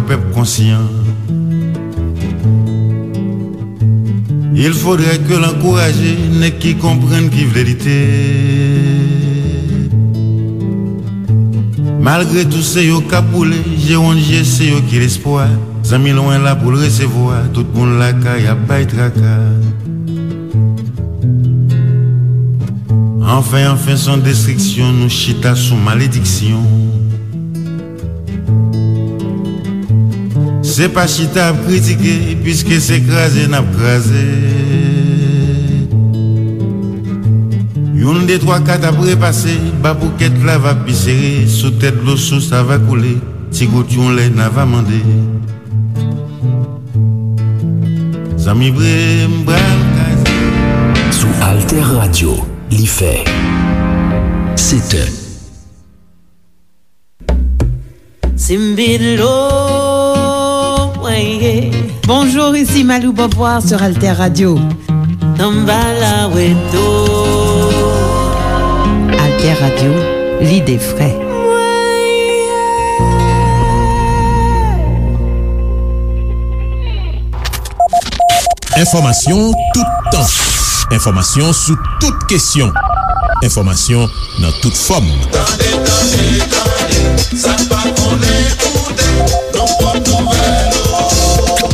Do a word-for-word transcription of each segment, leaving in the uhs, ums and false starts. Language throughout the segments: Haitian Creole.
Pèp konsyan. Il faudrait que l ankouraje nèg ki konprann, ki vle lite. Malgre tou se yo k ap boule, je wonn je se yo ki lespwa. Zanmi lwen la pou l resevwa, tout moun lakay ap bay traka. Anfen, anfen, s on destriksyon, nou chita sou malediksyon. Se pa chita ap kritike, piske se kraze n ap kraze. Youn, de, twa, kat ap repase, ba poukèt la va pi sere, sou tèt dlo sous a va koule, ti gout yon lè n a va mande. Zanmi vre, m pral kraze. Sou Alter Radio, li fè sèt è. Simbidlo, weye. Bonjour, ici Malou Beauvoir sur Alter Radio. Tambala weto. Alter Radio, l'idée vraie. Enfòmasyon toutan. Enfòmasyon sou tout kesyon. Enfòmasyon nan tout fòm. Tande, tande, tande, sa n pa konnen koute, nou pran nouvèl ou.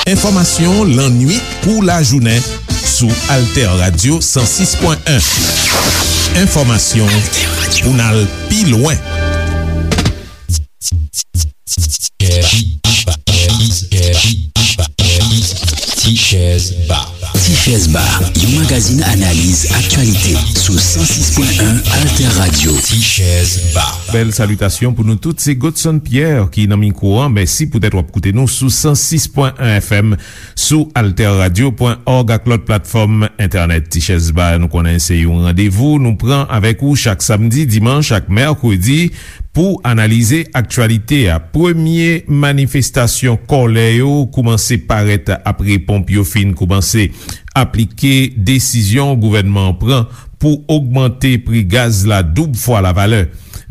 Enfòmasyon lannwit kou lajounen sou Alter Radio san sis pwen en. Enfòmasyon pou n al pi lwen. Tichèz Ba. Tichèz Ba, yon magazin analiz aktyalite sou san sis pwen en Alter Radio. Tichèz Ba. Bèl salitasyon pou nou tout. Se Godson Pierre ki nan mikwo an. Mèsi poutèt w ap koute nou sou san sis pwen en F M, sou alter radio pwen òg ak lòt platfòm entènèt. Tichèz Ba, nou konnen se yon randevou nou pran avèk ou chak samdi, dimanch ak mèkredi pou analize aktyalite a. Premye manifestasyon kòlè yo koumanse parèt apre ponp yo fin koumanse aplike desizyon gouvènman an pran pou ogmante pri gaz la doub fwa lavalè.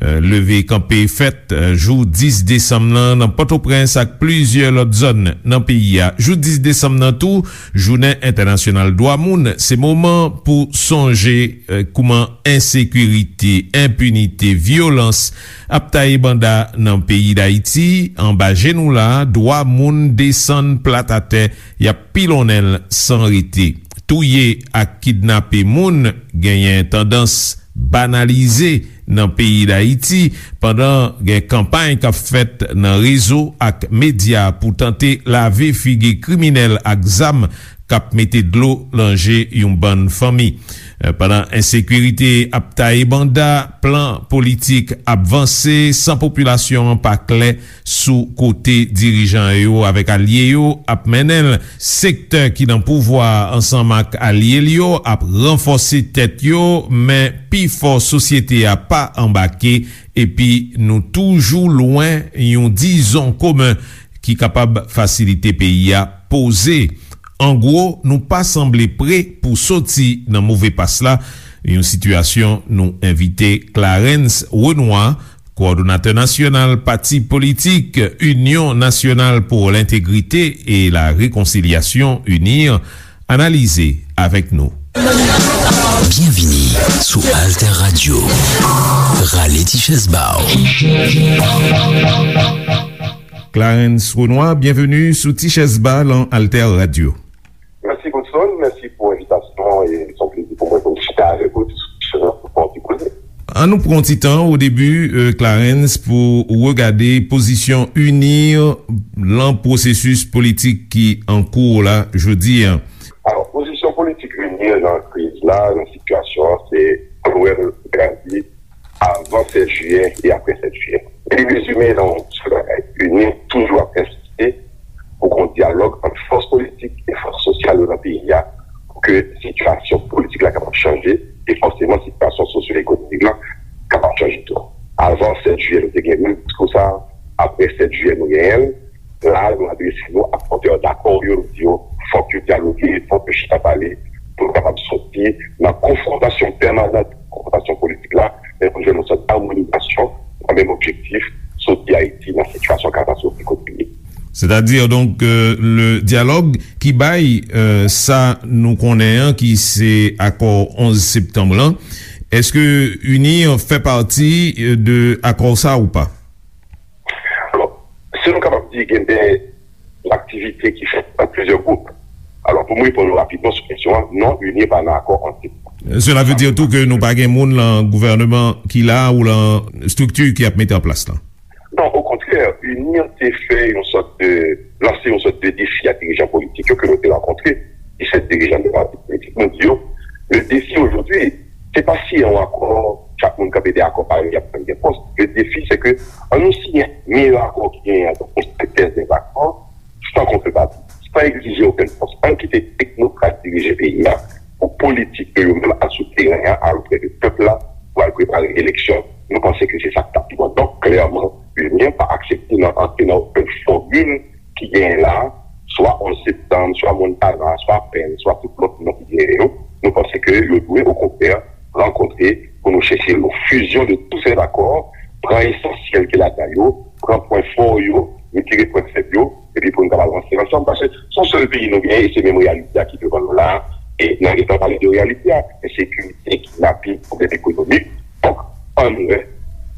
Euh, leve kanpe fèt, euh, jou dis desanm nan, nan Pòtoprens ak plizyè lòt zòn nan peyi a. Jou dis desanm nan tou, Jounen Entènasyonal Dwa Moun, se moman pou sonje, euh, kouman ensekirite, enpinite, vyolans ap taye banda nan peyi Dayiti. Anba je nou la, dwa moun desann plat atè, y ap pilonnen l san rete. Touye ak kidnape moun genyen tandans banalize nan peyi Dayiti, pandan gen kanpay k ap fèt nan rezo ak medya pou tante lave figi kriminèl ak zam k ap mete dlo nan je yon bann fanmi. Eh, pandan ensekirite ap taye banda, plan politik ap vanse san popilasyon an pa klè sou kote dirijan yo avèk alye yo ap mennen l. Sektè ki nan pouvwa a ansanm ak alye l yo ap ranfòse tèt yo, men pifò sosyete a pa anbake, epi nou toujou lwen yon dizon komen ki kapab fasilite peyi a poze. An gwo, nou pa sanble pre pou soti nan move pas la, yon sitiyasyon nou envite Clarens Renois, kowòdonatè nasyonal pati politik Union Nationale pour l'Intégrité et la Réconciliation, UNIR, analize avèk nou. Byenvini sou Alter Radio. Rale ti chèz ba w. Clarens Renois, byenveni sou Ti Chèz Ba lan Alter Radio. Mèsi, Godson. Mèsi pou envitasyon an. E se yon plezi pou mwen pou m chita avèk ou, diskisyon an pou fè yon ti koze. An nou pran yon ti tan o debi, euh, Clarens, pou w regade pozisyon UNIR lan pwosesis politik ki an kou la jodi a. Alò, pozisyon politik UNIR lan kriz la, lan sitiyasyon an, se pou wè l gade avan sèt jiyè e apre sèt jiyè. Li rezime nan yon sèl bagay, UNIR toujou ap ensiste pou gen yon dyalòg ant fòs politik e fòs sosyal yo nan peyi a, pou ke sitiyasyon politik la kapab chanje, e fòseman sitiyasyon sosyo-ekonomik la kapab chanje tou. Avan sèt jiyè, nou te gen menm diskou sa a, apre sèt jiyè, nou genyen l. La, nou adrese nou ak pòtè dakò yo, nou di yo, fòk yo dyaloge, fòk yo chita pale, pou nou kapab soti nan konfwontasyon pèmanan, konfwontasyon politik la, men pou nou jwenn yon sòt amonizasyon, nan menm objektif, soti Ayiti nan sitiyasyon katastwofik kote li ye. Sètadi, donk, euh, le dyalòg ki bay, euh, sa nou konnen an, ki se akò onz septanm lan, èske UNIR fè pati, euh, de akò sa ou pa? Alò, si nou kapab di gen de aktivite ki fèt nan plizyè gwoup. Alò, pou m reponn ou rapidman sou kesyon an, non, UNIR pa nan akò antre. Cela veut dire tou ke nou pa gen moun lan gouvènman ki la ou lan estrikti ki ap mete an plas lan? Non, okontrè, UNIR te fè yon sòt de, lanse yon sòt de defi a dirijan politik yo ke nou te rankontre, disèt dirijan de pati politik. Nou di yo, le défi aujourd'hui, se pa siyen yon akò, chak moun kanpe de akò parèy, y ap pran de pòs. Le défi, se ke an nou siyen meyè akò ki genyen an, donk yon sentèz de akò, san kontrepati, san egzije okenn pòs. Ann kite teknokrat dirije peyi a pou politik yo, yo menm al sou teren an, al oprè de pèp la, pou al prepare eleksyon. Nou panse ke se sa k t ap pi bon. Donk, klèman, UNIR pa aksepte nan antre nan okenn fòmil ki genyen la, swa onz septanm, swa Montana, swa Pèn, swa tout lòt non ki genyen yo. Nou panse ke yo dwe, okontrè, rankontre pou nou chèche yon fizyon de tout sèt akò, pran esansyèl ki ladan yo, pran pwen fò yo, retire pwen fèb yo, epi pou nou kapab avanse ansanm, paske se yon sèl peyi nou genyen, e se menm reyalite a ki devan nou la a, e n a gentan pale de reyalite a, ensekirite, kidnaping, pwoblèm ekonomik. Donk, ann wè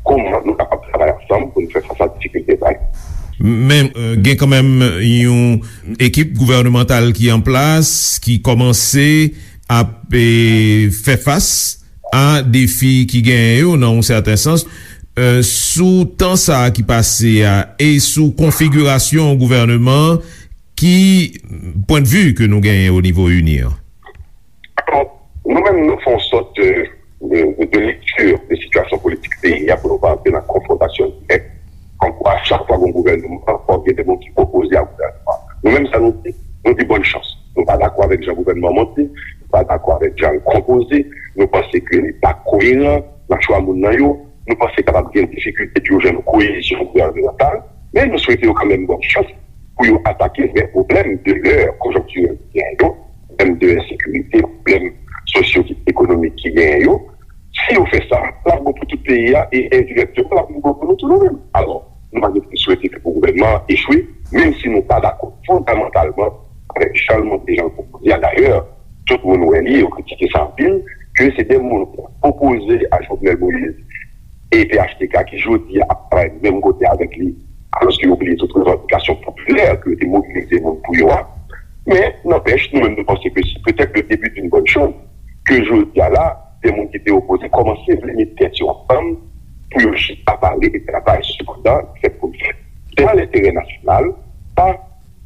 kòman nou kapab travay ansanm pou nou fè fas a difikilte sa yo. Men, euh, gen kanmenm yon ekip gouvènemantal ki an plas, ki kòmanse ap, eh, fè fas a defi ki genyen yo nan yon sèten sans, euh, sou tan sa a ki pase a e sou konfigirasyon gouvèneman an, ki pwennvi ke nou genyen o nivo UNIR? Alò, nou menm, nou fè yon sòt de, de, de, de lekti de sitiyasyon politik peyi a pou nou pa antre nan konfwontasyon dirèk. Kòmkwa, chak fwa gen yon gouvènman, fòk gen de moun ki opoze a gouvènman. Nou menm, sa nou di, nou di bòn chans. Nou pa dakò avèk jan gouvènman an monte, nou pa dakò avèk jan l konpoze, nou panse ke li pa koyeran nan chwa moun nan yo, nou panse kapab gen difikilte pou yo jwenn yon koyezyon gouvènemantal, men nou swete yo kanmenm bòn chans pou yo atake vrè pwoblèm de lè konjonktirèl ki genyen yo, pwoblèm de ensekirite, pwoblèm sosyo-ekonomik ki genyen yo. Si yo fè sa, l ap bon pou tout peyi a e endirèkteman, l ap bon pou nou tou nou menm. Alò, nou pa gen pou swete ke pou gouvènman an echwe, menm si nou pa dakò fondamantalman avèk jan l monte, jan l pwopoze a. Dayè, tout moun wè li, yo kritike sa anpil, ke se de moun ki opoze a Jovenel Moïse e P H T K ki jodi a ap travay menm kote avèk li, alòske yo bliye tout revandikasyon popilè ke yo te mobilize moun pou yo a. Men, nanpèch, nou menm nou panse ke se petèt le début d'une bonne chose ke jodi a la, de moun ki te opoze kòmanse vle met tèt yo ansanm pou yo chita pale e travay sou plan ki fèt pou l fèt. Se nan lenterè nasyonal, pa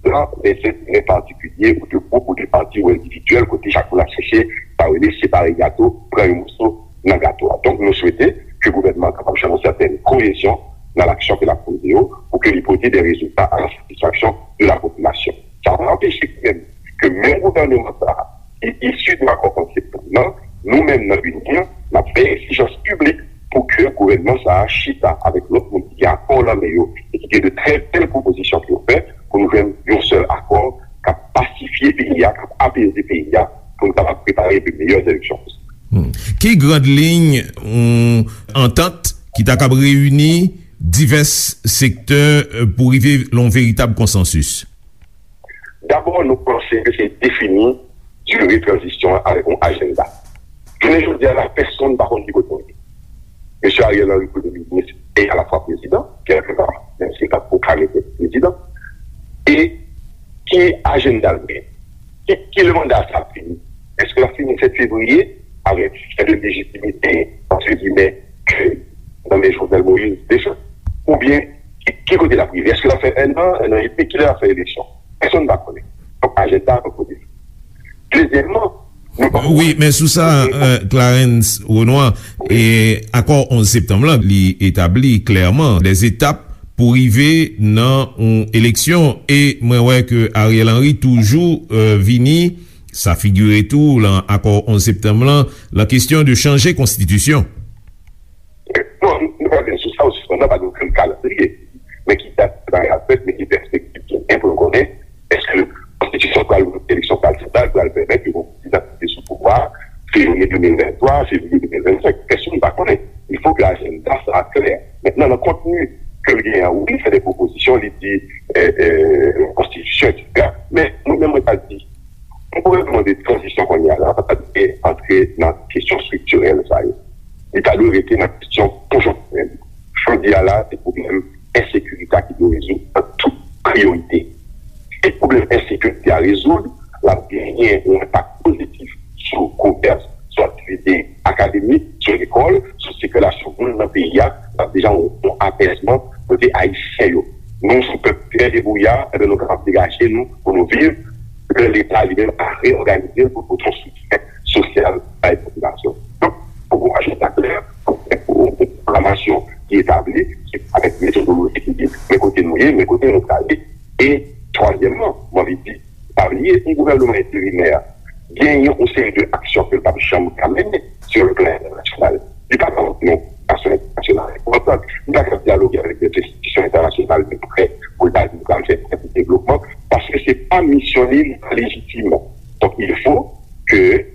nan lè enterè patikilye ou de gwoup ou de pati ou endividyèl kote chak moun ap chèche sa yo rele separe gato, pran yon moso nan gato a. Donk, nou swete ke gouvènman an kapab jwenn yon sètèn koyezyon nan laksyon ke l ap poze yo pou ke li pote de rezilta a la satisfaksyon de la popilasyon. Sa pa anpeche menm ke menm gouvèneman sa a, ki isi de akò konseptan nan, nou menm nan UNIR, n ap fè egzijans piblik pou ke gouvènman sa a chita avèk lòt moun ki gen akò nan men yo e ki gen de trè bèl pwopozisyon pou yo fè, pou nou jwenn yon sèl akò k ap pasifye peyi a, k ap apeze peyi a, pou nou kapab prepare de meyè eleksyon posib. Hmm. Ki grand liy yon antant ki ta kab reyini divès sektè, euh, pou rive lan yon veritab konsansis? Dabò, nou panse ke se defini dire tranzisyon an avèk yon ajanda. Jounen jodi a la, pèsonn pa konn ki kote nou ye. Mesye Ariel Henry, premye minis e alafwa prezidan, kèlkeswa, menm si l pa pwoklame tèt li prezidan. E ki ajanda l gen? Ki, ki lè manda sa ap fini? Èske l ap fini sèt fevriye avèk sèten lejitimite, antre gimè, ke nan men Jovenel Moïse deja? Oubyen, ki, ki kote l ap rive? Èske l ap fè ennan, ennan edmi? Kilè l ap fè eleksyon? Pèsonn pa konnen. Donk, ajanda an kote. Dezyèmman, nou pa... Wi, men sou sa, euh, Clarens Renois, e akò onz septanm lan, li etabli klèman de etap pou rive nan yon eleksyon, e mwen wè ke Ariel Henry toujou, euh, vini, sa figire tou lan akò onz septanm lan, lan kesyon de chanje konstitisyon. Non, nou pa gen sou sa, ou sispann nan, pa gen okenn kalandriye. Men ki dat bagay ap fèt, men ki pèspektiv ki gen pou nou konnen, èske konstitisyon pral, eleksyon pral fèt la, pral pèmèt ke yon prezidan ki te sou pouvwa a, fevriye de mil venntwa, fevriye de mil vennsenk, pèsonn pa konnen. Il faut que ajanda sa a klè. Mentnan, nan kontni ke l genyen an, wi, li fè de pwopozisyon, li di, e, e, konstitisyon, etsetera. Men, mwen menm, mwen ta di, yon gouvènman de tranzisyon kounye a la, pa ta dwe antre nan kesyon estriktirèl sa yo. Li ta dwe rete nan kesyon konjonktirèl. Jodi a la, se pwoblèm ensekirite a ki dwe rezoud an tout priyorite. Si pwoblèm ensekirite a rezoud, l ap genyen yon enpak pozitif sou komès, sou aktivite akademik, sou lekòl, sou sikilasyon moun nan peyi a, l ap deja yon, yon apèzman kote Ayisyen yo. Nou, sou pèp trè debouya, enben, nou kapab degaje nou pou nou viv, lè Leta li menm a reyòganize l pou pote yon soutyen sosyal bay popilasyon. Donk, fòk gon ajanda klè, fòk gen yon pwogramasyon ki etabli, ki avèk metodoloji ki di, men kote nou ye, men kote nou prale. E twazyèmman, mwen anvi di, pa bliye, yon gouvènman enterimè genyen yon seri de aksyon ke l p ap janm ka mennen sou le plan entènasyonal. Li pa ka antre nan yon aksyon entènasyonal enpòtan. Li pa ka dyaloge avèk de enstitisyon entènasyonal de prè pou l ta di l pral fè prè pou devlopman, paske se pa misyon li, li pa lejitim. Donk, il faut que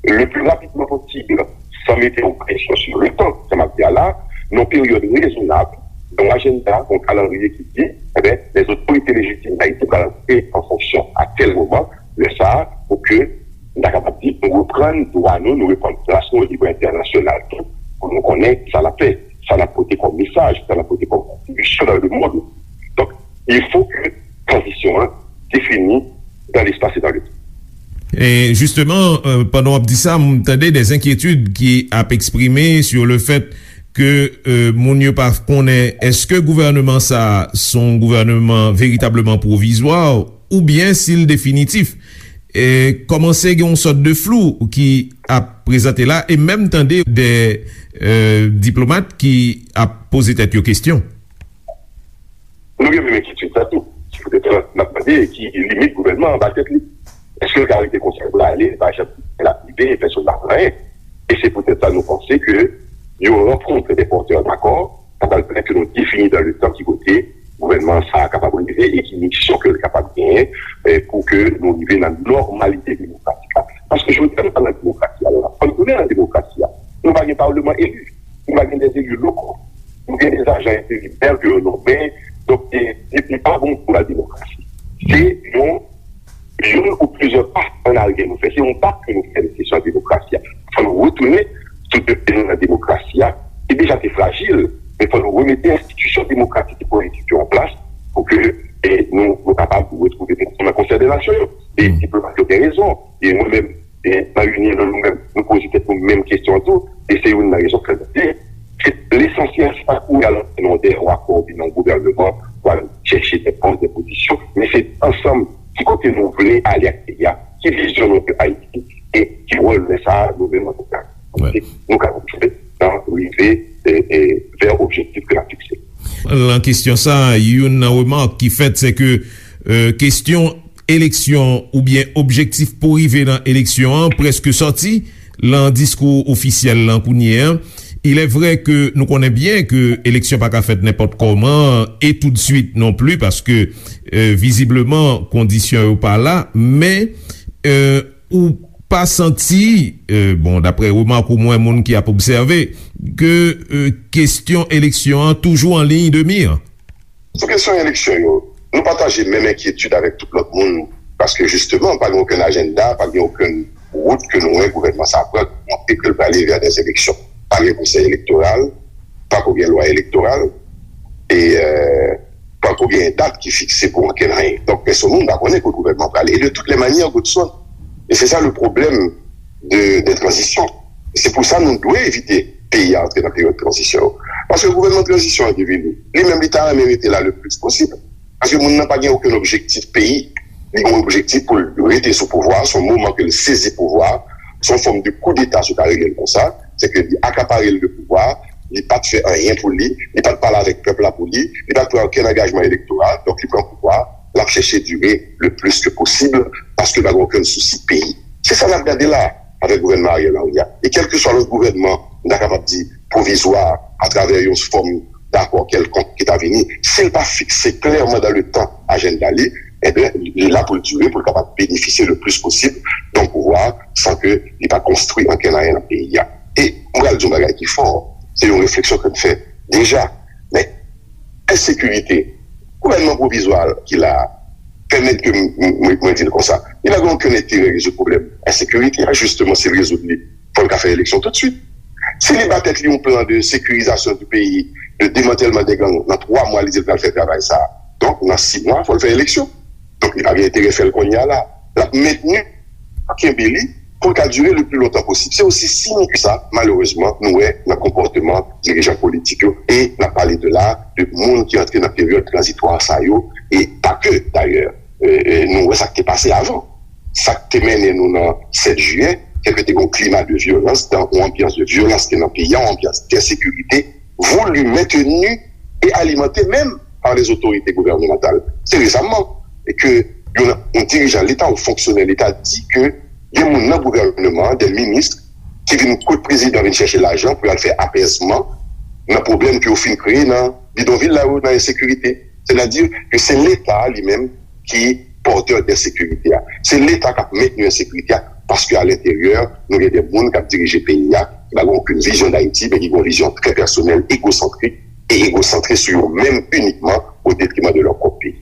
le plus rapidement possible, sans mettre yon presyon sur le temps, sa m ap di a la, nan yon peryòd rezonab, yon ajanda, yon kalandriye ki di, enben, les autorités légitimes d'Haïti pral antre an fonksyon a tèl moman, lè sa a, pou ke nou ta kapab di, nou reprann dwa nou, nou reprann plas nou o nivo entènasyonal tou, pou nou konnen sa n ap fè, sa n ap pote kòm mesaj, sa n ap pote kòm kontribisyon dans le monde. Donk, il faut que tranzisyon an défini dans l'espace et dans le temps. E jisteman, euh, pandan w ap di sa, m tande de enkyetid ki ap eksprime sur le fait ke, euh, moun yo pa konnen èske gouvènman sa a se yon gouvènman veritableman pwovizwa oubyen si l definitif. E kòmanse gen yon sòt de flou ki ap prezante la, e menm tande de, euh, diplomat ki ap poze tèt yo kesyon. Nou gen menm enkyetid sa tou. Se poutèt sa n ap mande ki limit gouvènman an ba tèt li. Èske l ka rete konsa pou l ale, li pa janm gen l ap rive, pèsonn pa konn anyen? E se poutèt sa nou panse ke yon rankont de pòtè dakò, sa pral pèmèt ke nou defini dans le temps ki kote gouvènman sa a kapab rive e ki misyon ke l kapab genyen, eh, pou ke nou rive nan nòmalite demokratik la. Paske jodi a nou pa nan demokrasi a, nou pa tounen nan demokrasi a. Nou pa gen palman eli, nou pa gen de eli lokal, nou gen de ajan enterimè ke yo nonmen, donk, e, e, e pa bon pou la demokrasi. Se yon, yon ou plizyè pa an aryè nou fè. Se yon bak ke nou fè nan kesyon demokrasi a. Fò nou retounen sou de pye nou nan demokrasi a, ki deja te frajil, men fò nou remete enstitisyon demokratik e politik yo an plas pou ke, e, nou, nou kapab retwouve nou nan Konsèy de Nasyon yo. E diplomat yo gen rezon. E mwen menm, e, nan Union, nou menm, nou poze tèt nou menm kesyon an tou. E se youn nan rezon ke nou di, se lesansyèl, se pa kouri al antre nan de yon akò oubyen nan yon gouvènman pou al chèche de pòs, de pozisyon, men se ansanm ki kote nou vle ale ak peyi a, ki vizyon nou de Ayiti, e ki wòl nou sa a, nou menm antouka, nou ka jwe nan rive, e, e, vè objektif ke n ap fikse. Nan kesyon sa a, youn nan remak ki fèt, se ke, e, kesyon eleksyon oubyen objektif pou rive nan eleksyon an prèske sòti nan diskou ofisyèl lan kounye a. Il est vrai ke nou konnen byen ke eleksyon pa ka fèt nenpòt kòman e toutswit non pli, paske, e, vizibleman, kondisyon yo pa la, men, e, ou pa santi, e, bon, daprè remak ou mwen, moun ki ap obsève, ke, e, kesyon eleksyon an toujou an liy de mi? Sou kesyon eleksyon yo, nou pataje menm enkyetid avèk tout lòt moun, paske jisteman, pa gen okenn ajanda, pa gen okenn wout ke nou wè gouvènman sa a pran, ki montre ke l prale vè dè eleksyon. Pa gen konsèy elektoral, pako gen lwa elektoral, e, e, pako gen dat ki fikse pou okenn anyen. Donk, pèsonn moun pa konnen kote gouvènman prale. E de tout lè manyè, Godson, e se sa le pwoblèm de, de tranzisyon. Se pou sa nou dwe evite peyi a antre nan peryòd tranzisyon yo. Paske gouvènman tranzisyon an ki vini, li menm li ta renmen rete la le plis posib. Paske moun nan pa gen okenn objektif peyi. Li gen objektif pou l rete sou pouvwa, se yon moman ke l sezi pouvwa, se yon fòm de koudeta si w ta rele l konsa, se ke li akapare l de pouvwa, li pa t fè anyen pou li, li pa t pale avèk pèp la pou li, li pa t pran okenn angajman elektoral, donk li pran pouvwa, l ap chèche dire le plis ke posib, paske l pa gen okenn sousi peyi. Se sa n ap gade la avèk gouvènman Ariel Henry a. E kèlkeswa lòt gouvènman, nou ta kapab di pwovizwa, atravè yon fòm dakò kèlkonk ki ta vini, si l pa fikse klèman dan le tan ajanda li, ebyen, li la pou l dire, pou l kapab benefisye le plis posib de yon pouvwa san ke li pa konstwi ankenn anyen nan peyi a. E mwen pral di yon bagay ki fò, se yon refleksyon ke m fè deja, men ensekirite. Gouvènman pwovizwa ki la a pèmèt ke m, m, mwen, mwen di l konsa, li pa gen okenn enterè rezoud pwoblèm ensekirite a, jisteman, si l rezoud li, fò l ka fè eleksyon toutswit. Si li ba tèt li yon plan de sécurisation du pays, de démantèlman dè gang, nan twa mwa, li di l pral fè travay sa a. Donk, nan sis mwa, fò l fè eleksyon. Donk, li pa gen enterè fè l kounye a la. L ap mentni, kenbe li, pou l ka dire le pli lontan posib. Se osi simp ke sa, malerezman, nou wè nan konpòteman dirijan politik yo. E n ap pale de la, de moun ki antre nan peryòd tranzitwa sa yo, e pa ke, dayè. E, e, nou wè sa k te pase avan. Sa k te mennen nou nan sèt jiyè, se ke te gen yon klima de vyolans, dan yon anbyans de vyolans ki nan peyi a, yon anbyans de ensekirite, voulu, maintenu et alimenté même par les autorités gouvernementales. Se resaman ke yon, yon dirijan Leta ou fonksyonè Leta di ke gen moun nan gouvènman an, de minis, ki vin kot prezidan, vin chèche lajan pou y al fè apèzman nan pwoblèm ke yo fin kreye nan bidonvil la yo, nan ensekirite. Sètadi ke se Leta a li menm ki pòtè de ensekirite a. Se Leta k ap mentni ensekirite a, paske a lenteryè, nou gen de moun k ap dirije peyi a, ki pa gen okenn vizyon d Ayiti, men ki gen yon vizyon trè pèsonèl, egosantrik, e egosantre sou yo menm inikman, o detriman de lè pwòp peyi.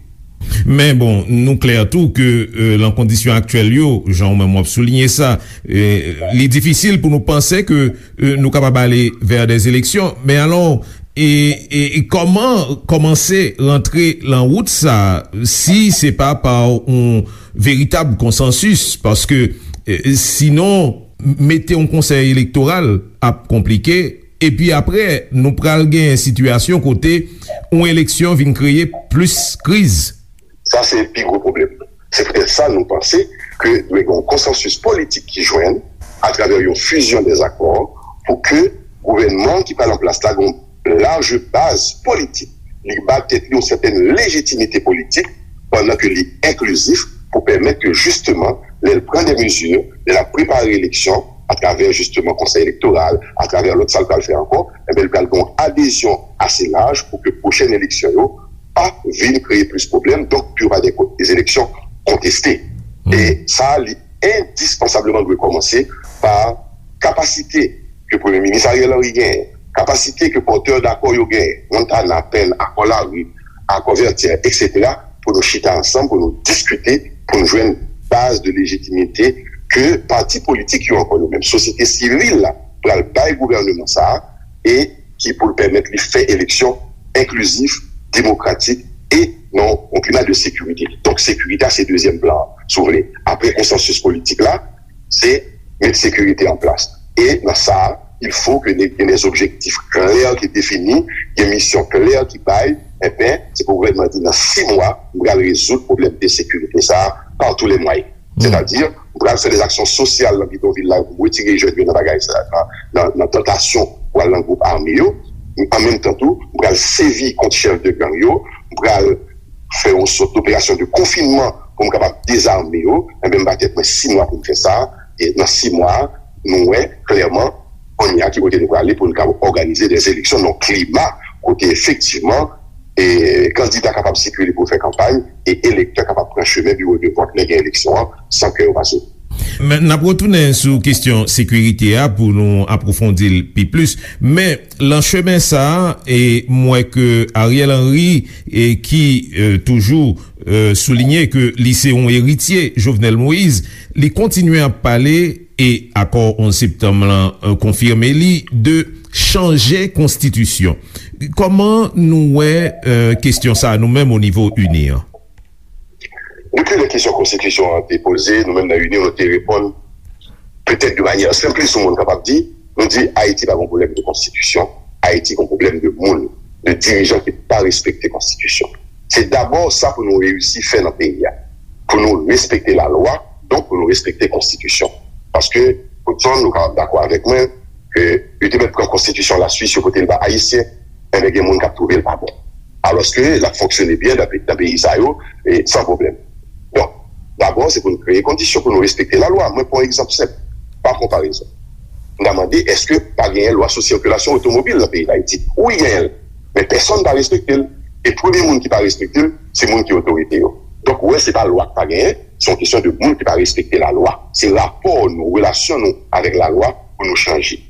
Men bon, nou klè tou ke euh, lan kondisyon aktyèl yo, jan ou menm w ap souliye sa, euh, li difisil pou nou panse ke euh, nou kapab ale vè dè eleksyon. Men alò, e, e, e kòman kòmanse rantre lan wout sa a, si se pa pa yon veritab konsansis? Paske euh, sinon, mete yon konsèy elektoral ap konplike, epi apre, nou pral gen sitiyasyon kote yon eleksyon vin kreye plis kriz. Sa se pi gwo pwoblèm. Se poutèt sa nou panse ke dwe gen yon konsansis politik ki jwenn atravè yon fusion des accords pou ke gouvènman ki pral an plas la gen yon laj baz politik. Li ba tèt li yon sètèn lejitimite politik pandan ke li enklizif pou pèmèt ke jisteman, lè l pran de mezi, lè l ap prepare eleksyon atravè jisteman konsèy elektoral, atravè lòt sa l pral fè ankò, enben l pral gen yon adezyon ase laj pou ke pwochèn eleksyon yo pa vin kreye plis pwoblèm, donk pou yo pa gen ko- des élections contestées. E sa, li endispansableman dwe kòmanse pa kapasite ke Premye Minis Ariel Henry genyen, kapasite ke pòtè dakò yo genyen, Montana, Pèn, Akò Lari, Akò Vètyè, etsetera, pou nou chita ansanm, pou nou diskite, pou nou jwenn baz de lejitimite ke pati politik yo, ankò yo menm, sosyete sivil la, pral bay gouvènman sa a, e ki pou l pèmèt li fè eleksyon enklizif, demokratik e nan yon klima de sekirite. Donk, sekirite a se dezyèm plan an, si w vle. Apre konsansis politik la, se met sekirite an plas. E nan sa, il faut que gen des objectifs clairs ki defini, gen misyon klè ki bay, enben, se pou gouvènman di nan sis mwa, m pral rezoud pwoblèm de sekirite sa a par tous les moyens. Sètadi, m pral fè des actions sociales nan bidonvil la pou m retire jèn yo nan bagay sa, nan, nan, nan tantasyon pou al nan gwoup ame yo. An menm tan tou, m pral sèvi kont chèf de gang yo, m pral fè yon sòt doperasyon de konfinman pou m kapab dezame yo. Enben, m ba tèt mwen sis mwa pou m fè sa. E nan sis mwa, nou wè klèman kounye a ki kote nou prale pou nou kapab òganize des élections nan yon klima kote efektivman e kandida kapab sikile pou fè kanpay e elektè kapab pran chemen biwo de vòt lè gen eleksyon an san ke yo pa soti. Men, n ap retounen sou kesyon sekirite a pou nou apwofondi l pi plis. Men, lan chemen sa a, e m wè ke Ariel Henry, e ki e, toujou e, soulinye ke li se yon eritye Jovenel Moïse, li kontinye ap pale, e akò onz septanm lan e, konfime li, de chanje konstitisyon. Kòman nou wè e, kesyon sa a nou menm o nivo ini an? Depi lè kesyon konstitisyon an te poze, nou menm nan ini, nou te reponn petèt de manyè senplis, yon moun kapab di, nou di Ayiti pa gen pwoblèm de konstitisyon, Ayiti gen pwoblèm de moun, de dirijan ki pa respekte konstitisyon. Se dabò sa pou nou reyisi fè nan peyi a, pou nou respekte lalwa, donk pou nou respekte konstitisyon. Paske, Woodson, nou kapab dakò avèk mwen, ke yo te mèt pran konstitisyon Laswis, yo pote l ba Ayisyen, enben gen moun k ap twouve l pa bon. Alòske l ap fonksyone byen nan pe- nan peyi sa yo, e san pwoblèm. Donk, dabò, se pou n kreye kondisyon pou nou respekte lalwa. Mwen pran yon egzanp senp, pa konparezon. M ta mande, èske pa genyen lwa sou sikilasyon otomobil nan peyi Dayiti? Wi, genyen l. Men pèsonn pa respekte l. E premye moun ki pa respekte l, se moun ki otorite yo. Donk, ou wè, se pa lwa k pa genyen, se yon kesyon de moun ki pa respekte lalwa. Se rapò nou, relasyon nou avèk lalwa pou nou chanje.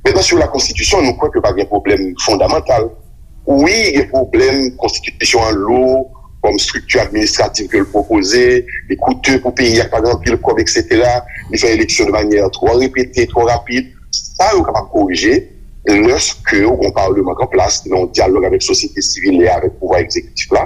Mentnan, sou la konstitisyon, nou kwè ke pa gen pwoblèm fondamantal. Wi, gen pwoblèm, konstitisyon an lou, kòm estrikti administratif ke l pwopoze, li koute pou peyi a, pa gen anpil kòb, etsetera. Li fè eleksyon de manyè twò repete, twò rapid. Sa yo kapab korije lèske ou gen yon palman k an plas, ki nan yon dyalòg avèk sosyete sivil e avèk pouvwa egzekitif la.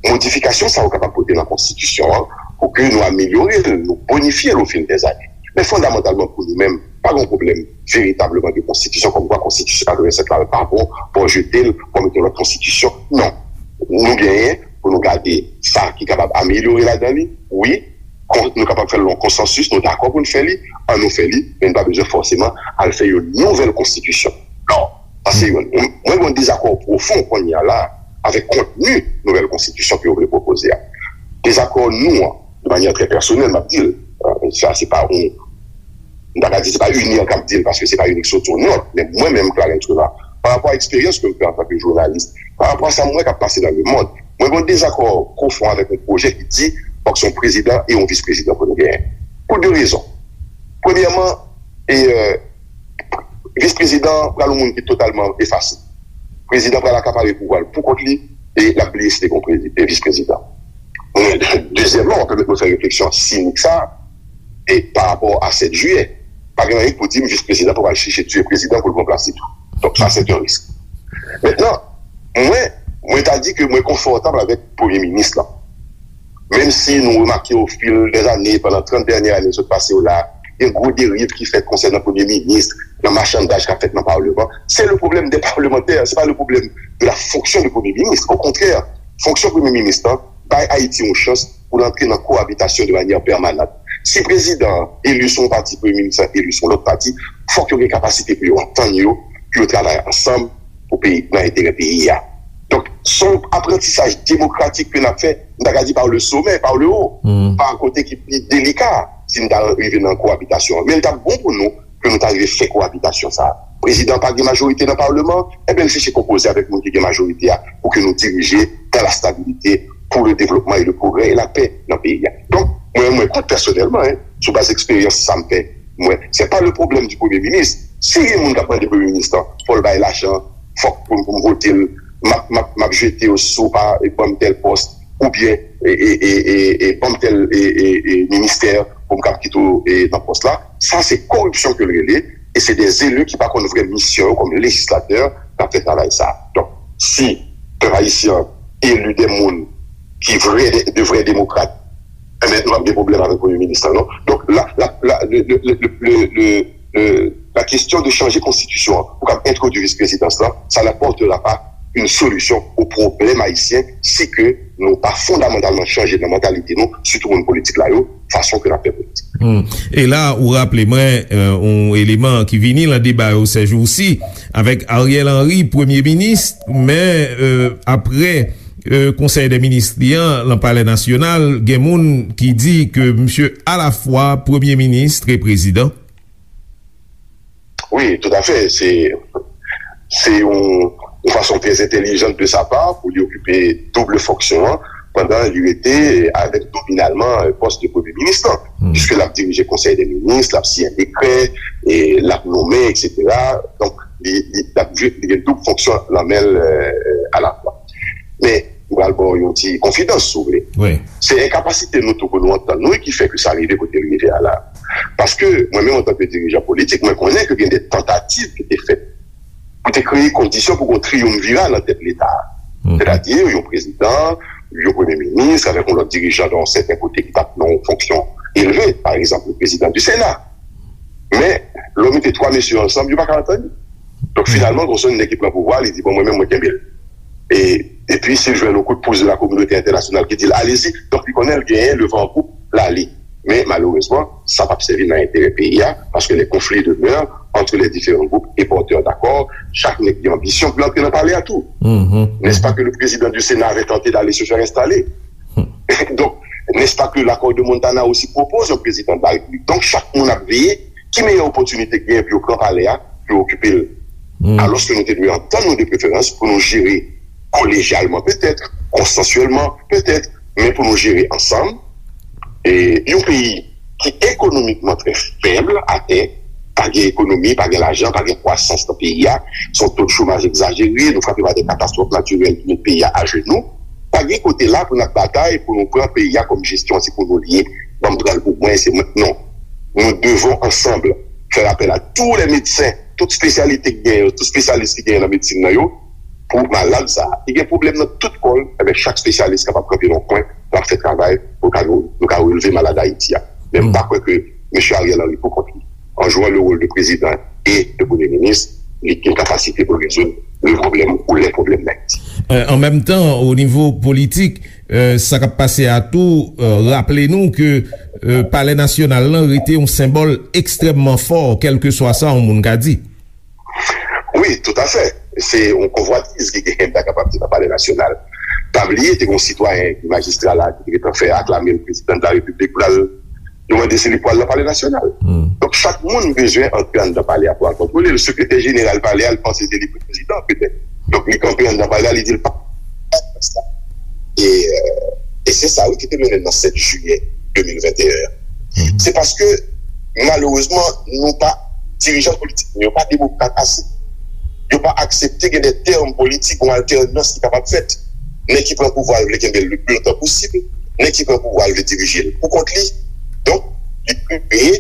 Modifikasyon sa yo kapab pote nan konstitisyon an pou ke nou amelyore l, nou bonifye l ofil dèzane. Men fondamantalman pou nou menm, pa gen yon pwoblèm veritableman de konstitisyon, kòmkwa konstitisyon katrevennsèt la pa bon, fò jete l, fò mete yon lòt konstitisyon. Non. Nou genyen pou nou gade sa ki kapab amelyore ladan li, wi, kon- nou kapab fè l nan konsansis, nou dakò pou n fè li, ann nou fè li, men n pa bezwen fòseman al fè yon nouvèl konstitisyon. Non, sa se youn. Mwen gen yon dezakò pwofon kounye a la avèk kontni nouvèl konstitisyon ke yo vle pwopoze a. Dezakò nou an, de manyè trè pèsonèl, m ap di l, euh, sa se pa yon, m ta ka di se pa UNIR k ap di l, paske se pa youn ki soti yon nòt, men mwen menm, Clarens Renard, pa rapò a eksperyans ke m fè antanke jounalis, pa rapò a sa m wè k ap pase nan lemonn, mwen gen yon dezakò pwofon avèk yon pwojè ki di fòk se yon prezidan e yon vis prezidan pou nou genyen. Pou de rezon. Premyèman, e, euh, vis prezidan pral yon moun ki totalman efase. Prezidan pral akapare pouvwa l pou kont li e l ap bliye si te gen yon prezi- e vis prezidan. Dezyèmman, w ap pèmèt mwen fè refleksyon sinik sa a, e pa rapò a sèt jiyè, pa gen anyen ki pou di m vis prezidan pou pral chèche tiye prezidan pou l pran plas li tou. Donk, sa, se yon risk. Mentnan, mwen, mwen ta di ke mwen konfòtab avèk premye minis lan. Menm si nou remake ofil dèzane, pandan trant dènye ane sot pase yo la, gen gwo deriv ki fèt konsènan premye minis, nan machandaj k ap fèt nan palman. Se le problème des parlementaires, se pa le problème de la fonction de premye minis. Okontrè, fonksyon premye minis lan bay Ayiti yon chans pou l antre nan koabitasyon de manyè pèmanan. Si prezidan an eli sou yon pati, premye minis lan eli sou yon lòt pati, fòk yo gen kapasite pou yo antann yo, pou yo travay ansanm pou peyi, nan enterè peyi a. Donk, se yon aprantisaj demokratik ke n ap fè, m ta ka di par le sommet, par le haut, pa kote ki pi delika, si n ta rive nan koabitasyon an. Men l t ap bon pou nou ke nou ta rive fè koabitasyon sa a. Prezidan pa gen majorite nan palman, enben, l chèche konpoze avèk moun ki gen majorite a pou ke nou dirije dans la stabilité, pour le développement et le progrès et la paix nan peyi a. Donk, mwen, mwen kont pèsonèlman, en, sou baz eksperyans sa m fè, mwen, se pa le problème du premye minis. Si gen moun k ap mande premye minis lan, fò l bay lajan, fòk pou, pou m vote l, m ap, m ap, m ap jete yo si w pa ban m tèl pòs, oubyen, e, e, e, e, e, ban m tèl, e, e, e, ministè pou m kab kite w, e, nan pòs la. Sa se koripsyon ke l rele, e se de eli ki pa konn vrè misyon yo kòm lejislatè k ap fè travay sa. Donk, si pèp ayisyen an eli de moun ki vrè, de, de vrè demokrat, enben, nou p ap gen pwoblèm avèk premye minis lan, non. Donk, la, la, la, le, le, le, le, le, le, la question de changer konstitisyon an pou kab entwodui vis prezidans lan, ça n'apportera pas une solution au problème haïtien si ke nou pa fondamantalman chanje nan mantalite nou, sitou moun politik la yo, fason ke n ap fè politik. Hmm. E la, ou raple mwen, euh, yon eleman ki vini nan deba yo sèjousi, avèk Ariel Henry, premye minis, men, euh, apre, euh, konsèy dè minis li an, nan Palè Nasyonal, gen moun ki di ke misye alafwa premye minis e prezidan. Wi, toutafè. Se, se yon, yon fason trè entèlijan de sa pa pou li okipe doub fonksyon an pandan li rete avèk nominalman pòs de premye minis lan. Piske l ap dirije konsèy dè minis, l ap siyen dekrè, e l ap nonmen, etsetera. Donk, li, li, l ap jwe, li gen doub fonksyon nan men l, euh, alafwa. Men, m pral ba w yon ti konfidans, si w vle. Wi. Se enkapasite nou tou pou nou antann nou ki fè ke sa rive kote l rive a la. Paske mwen menm, antanke dirijan politik, mwen konnen ke gen de tantativ ki te fèt pou te kreye kondisyon pou gen yon triyonvira nan tèt Leta a. Sètadi, yon prezidan, yon premye minis, avèk yon lòt dirijan nan yon sèten kote ki t ap nan yon fonksyon elve, pa egzanp, le prezidan di Sena. Men, lè w mete twa mesye yo ansanm, yo pa ka antann. Donk, finalman, gon sèl nèg ki pran pouvwa, li di, "Bon, mwen menm, mwen kenbe l." E, epi, si l jwenn yon kout pous de la kominote entènasyonal ki di l, "Allez-y." Donk, li konnen l genyen le van an poup, l ale. Men, malerezman, sa p ap sèvi nan enterè peyi a, paske les conflits demeurent entre les différents groupes et porteurs d'accords. Chak nèg gen anbisyon pou l antre nan palè a tou. N'est-ce pas que le président du Sénat avait tenté d'aller se faire installer? Donc, n'est-ce pas que l'accord de Montana aussi propose un président de la République? Donk, chak moun ap veye ki meyè opòtinite k genyen pou yo pran palè a, pou yo okipe l. Alòske nou te dwe antann nou de preferans pou nou jere kolejyalman petèt, konsansyèlman petèt, men pou nou jere ansanm. E yon peyi ki ekonomikman trè fèb atè, Pa gen ekonomi, pa gen lajan, pa gen kwasans nan peyi a. Se yon to de chomaj egzajere, nou frape pa de katastwòf natirèl ki met peyi a ajenou. Pa gen kote la pou n ap batay pou nou pran peyi a kòm jesyon, se pou nou l ye. Ban m pran l pou mwen, se mwen. Non. Nous devons ensemble faire appel à tous les médecins, tout espesyalite ki genyen, tout espesyalis ki genyen nan medsin nan yo, pou malad sa a. Li gen pwoblèm nan tout kò l, enben, chak espesyalis kapab kanpe nan yon kwen, l ap fè travay pou ka nou, nou ka releve malad Ayiti a. Men m pa kwè ke mesye Ariel Henry, pou kont li, an jwè le rôle de président et de Premier ministre, li gen kapasite pou rezoud le problème ou les problèmes d'Haïti. Euh, an menm tan, o nivo politik, euh, sa k ap pase a tou, euh, raple nou ke, euh, Palè Nasyonal lan rete yon senbòl ekstrèmman fò, kèlkeswa sa yon moun ka di. Wi, toutafè. Se yon konvwatiz ki genyen, m ta kapab di, nan Palè Nasyonal. Pa bliye, te gen yon sitwayen ki majistra la, ki te gentan fè aklame l prezidan de la repiblik pou l al, yo mande si li pral nan Palè Nasyonal. Donk, chak moun bezwen antre anndan palè a pou al kontwole l. Sekretè jeneral palè a, li panse se li prezidan, petèt. Donk, li kanpe anndan palè a, li di l pa. E, euh, e se sa, wi, ki te mennen nan sèt jiyè de mil venteyen an. Se paske, malerezman, nou pa, dirijan politik nou yo pa demokrat ase. Yo pa aksepte gen de tèm politik, yon altènans ki kapab fèt. Nèg ki pran pouvwa a vle kenbe l le pli lontan posib, nèg ki pran pouvwa a vle dirije l pou kont li. Donk, li kreye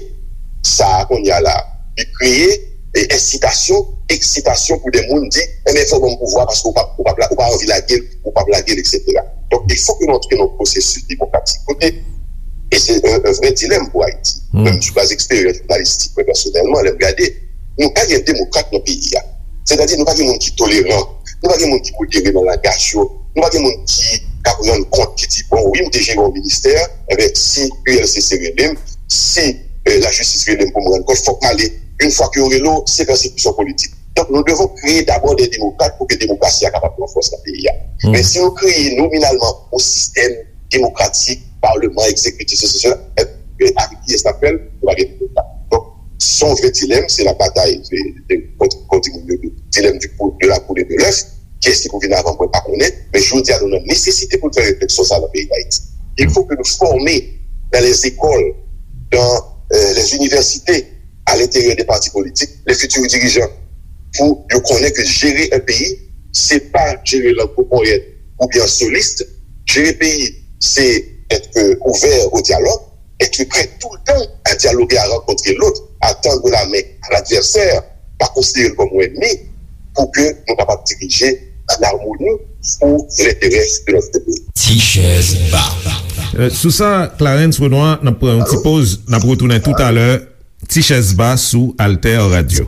sa a kounye a la. Li kreye, e, ensitasyon, eksitasyon pou de moun di, enben, fò w ban m pouvwa paske ou pa, ou pa, ou pa anvi lage l, ou p ap lage l, etsetera. Donk, il faut que nou antre nan yon pwosesis demokratik. Kote, e se yon, yon vrè dilèm pou Ayiti. Menm sou baz eksperyans jounalistik, mwen pèsonèlman, lè m gade, nou pa gen demokrat nan peyi a. Sètadi, nou pa gen moun ki toleran, nou pa gen moun ki modere nan langaj yo, nou pa gen moun ki k ap rann kont, ki di, bon, wi, m te jere yon ministè, enben, si U L C C rele m, si, eh, lajistis rele m pou m rann kont, fòk m ale. Yon fwa ke yo rele w, se pèsekisyon politik. Donk, nous devons créer d'abord des démocrates pou ke demokrasi a kapab pran fòs nan peyi a. Men si nou kreye nominalman yon sistèm demokratik, palman, egzekitif, sesi, sela, eh, eh, avèk kiyès n ap fè l? Nou pa gen demokrat. Donk, se yon vrè dilèm, se la batay de, de, kont, kont di moun yo, dilèm du pou-, de la poule et de l'œuf, kiyès ki pou vin avan, mwen pa konnen, men jodi a, nou nan nesesite pou n fè refleksyon sa a nan peyi Dayiti. Il faut que nous formions dans les écoles, dans, euh, les universités, à l'intérieur des partis politiques, les futurs dirigeants, pou yo konnen ke jere yon peyi, se pa jere l an gwo ponyèt oubyen an solis. Jere peyi, se être ouvert au dialogue, être prêt tout le temps à dialoguer, à rencontrer l'autre, à tendre la main à l'adversaire, pa konsidere l kòm yon ènmi, pou ke nou kapab dirije an amoni pou lenterè de notre pays. Ti chèz ba. Euh, sou sa, Clarens Renois, n ap pran yon ti poz, n ap retounen toutalè. Ti chèz ba sou Alter Radio.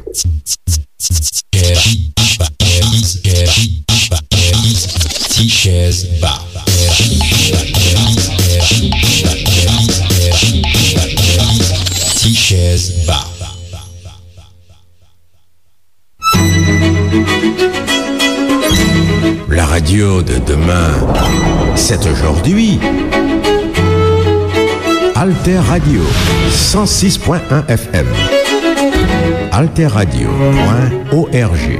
Ti chèz ba. Ti chèz ba. La radio de demain, c'est aujourd'hui. Alter Radio, cent six point un F M. Alter Radio point O R G.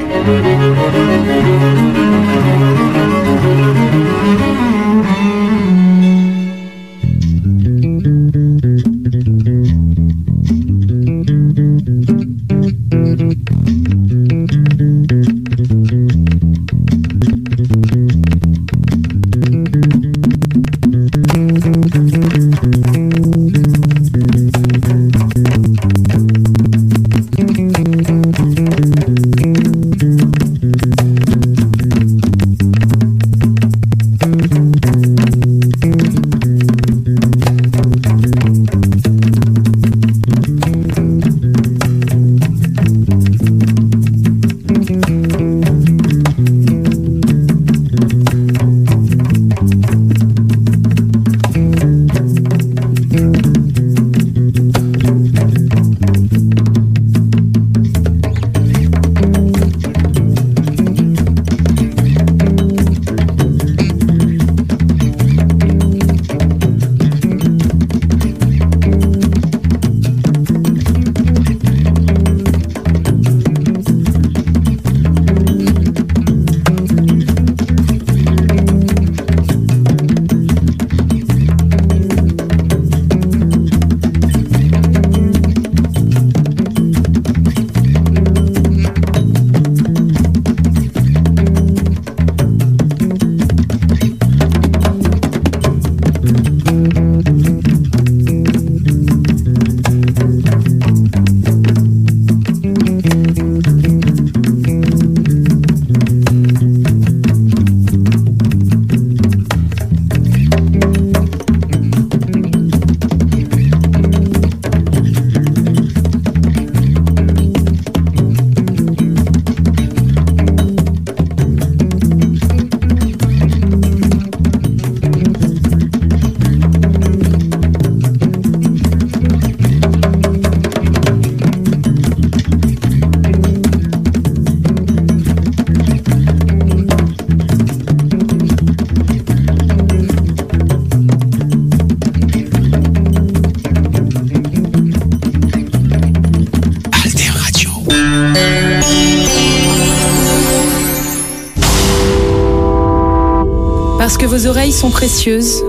Que vos oreilles sont précieuses.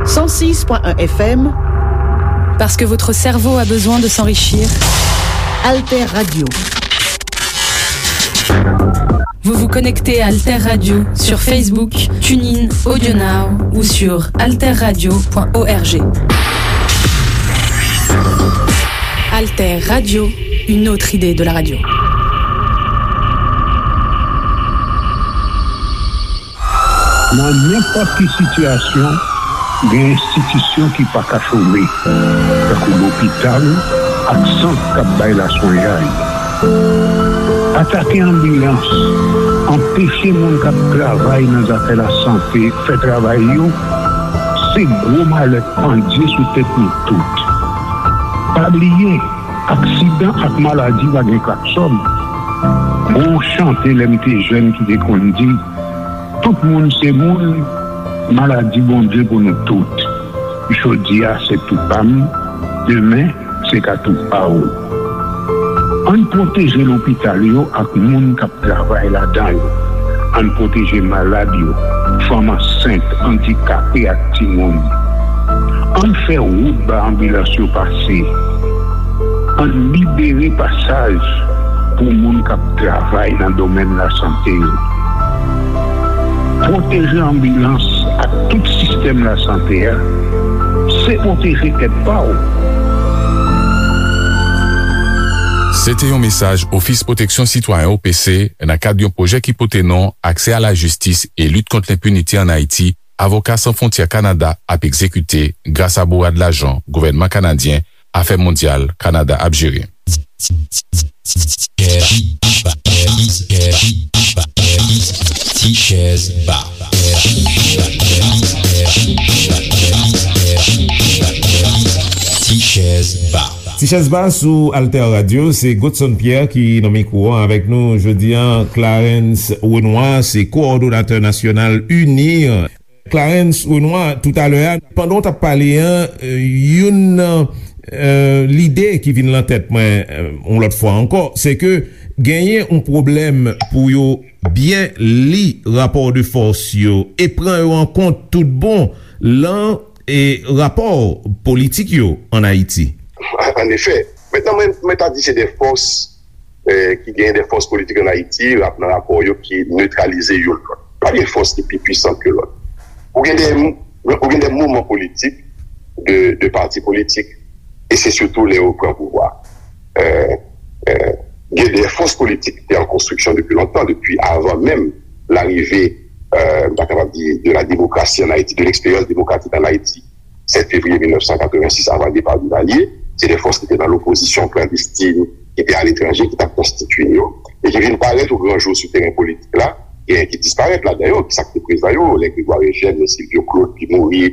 Cent six point un F M. Parce que votre cerveau a besoin de s'enrichir. Alter Radio. Vous vous connectez à Alter Radio sur Facebook, TuneIn, AudioNow ou sur alterradio point org. Alter Radio, une autre idée de la radio. Nan nenpòt ki sitiyasyon, gen enstitisyon ki pa ka chome, tankou lopital ak sant k ap bay laswenyay. Atake anbilans, anpeche moun k ap travay nan zafè lasante fè travay yo, se gwo malè k pandye sou tèt nou tout. Pa bliye, aksidan ak maladi pa gen klaksòn. Gon chante lè m te jèn ki te konn di, Tout moun se moun, maladi Bondye pou nou tout. Jodi a se tou pa m, demen se ka tou pa w. Ann pwoteje lopital yo ak moun k ap travay ladan yo. Ann pwoteje malad yo, fanm ansent, andikape ak timoun. Ann fè wout ba anbilans yo pase. Ann libere pasaj pou moun k ap travay nan domèn lasante yo. Pwoteje anbilans ak tout sistèm lasante a, se pwoteje tèt pa w. Se te yon mesaj Ofis Pwoteksyon Sitwayen, O P C, nan kad yon pwojè ki pote non Aksè a la jistis e lit kont lenpinite ann Ayiti, Avoka San Fwontyè Kanada ap egzekite gras a bourad lajan gouvènman kanadyen Afè Mondyal Kanada ap jere. Tichèz Ba. Tichèz Ba. Tichèz Ba sou Alter Radio, se Godson Pierre ki nan mikwo a avèk nou jodi a. Clarens Renois se kowòdonatè nasyonal UNIR. Clarens Renois, toutalè a, pandan w t ap pale a, youn nan lide ki vin lan tèt mwen yon lòt fwa ankò, se ke genyen yon pwoblèm pou yo byen li rapò de fòs yo e pran yo an kont tout bon lan rapò politik yo ann Ayiti. Annefè, mentnan mwen ta di se de fòs ki genyen de fòs politik ann Ayiti, nan rapò yo ki netralize youn lòt. Pa gen fòs ki pi pwisan ke lòt. Ou gen de, ou gen de mouvman politik, de, de pati politik, e se sitou lè yo pran pouvwa. Gen de fòs politik ki te an konstriksyon depi lontan, depi avan menm larive, m ta kapab di, de la demokrasi ann Ayiti, de leksperyans demokratik ann Ayiti. sèt fevriye mil nèf san katrevensis, avan depa Duvalier, se de fòs ki te nan lopozisyon klandestin, ki te aletranje, ki t ap konstitye yo, e ki vin parèt o gran jou sou teren politik la, genyen ki disparèt ladan yo, ki sa k te prezan yo, lè Grégoire Eugène, lè Sylvio Claude ki mouri,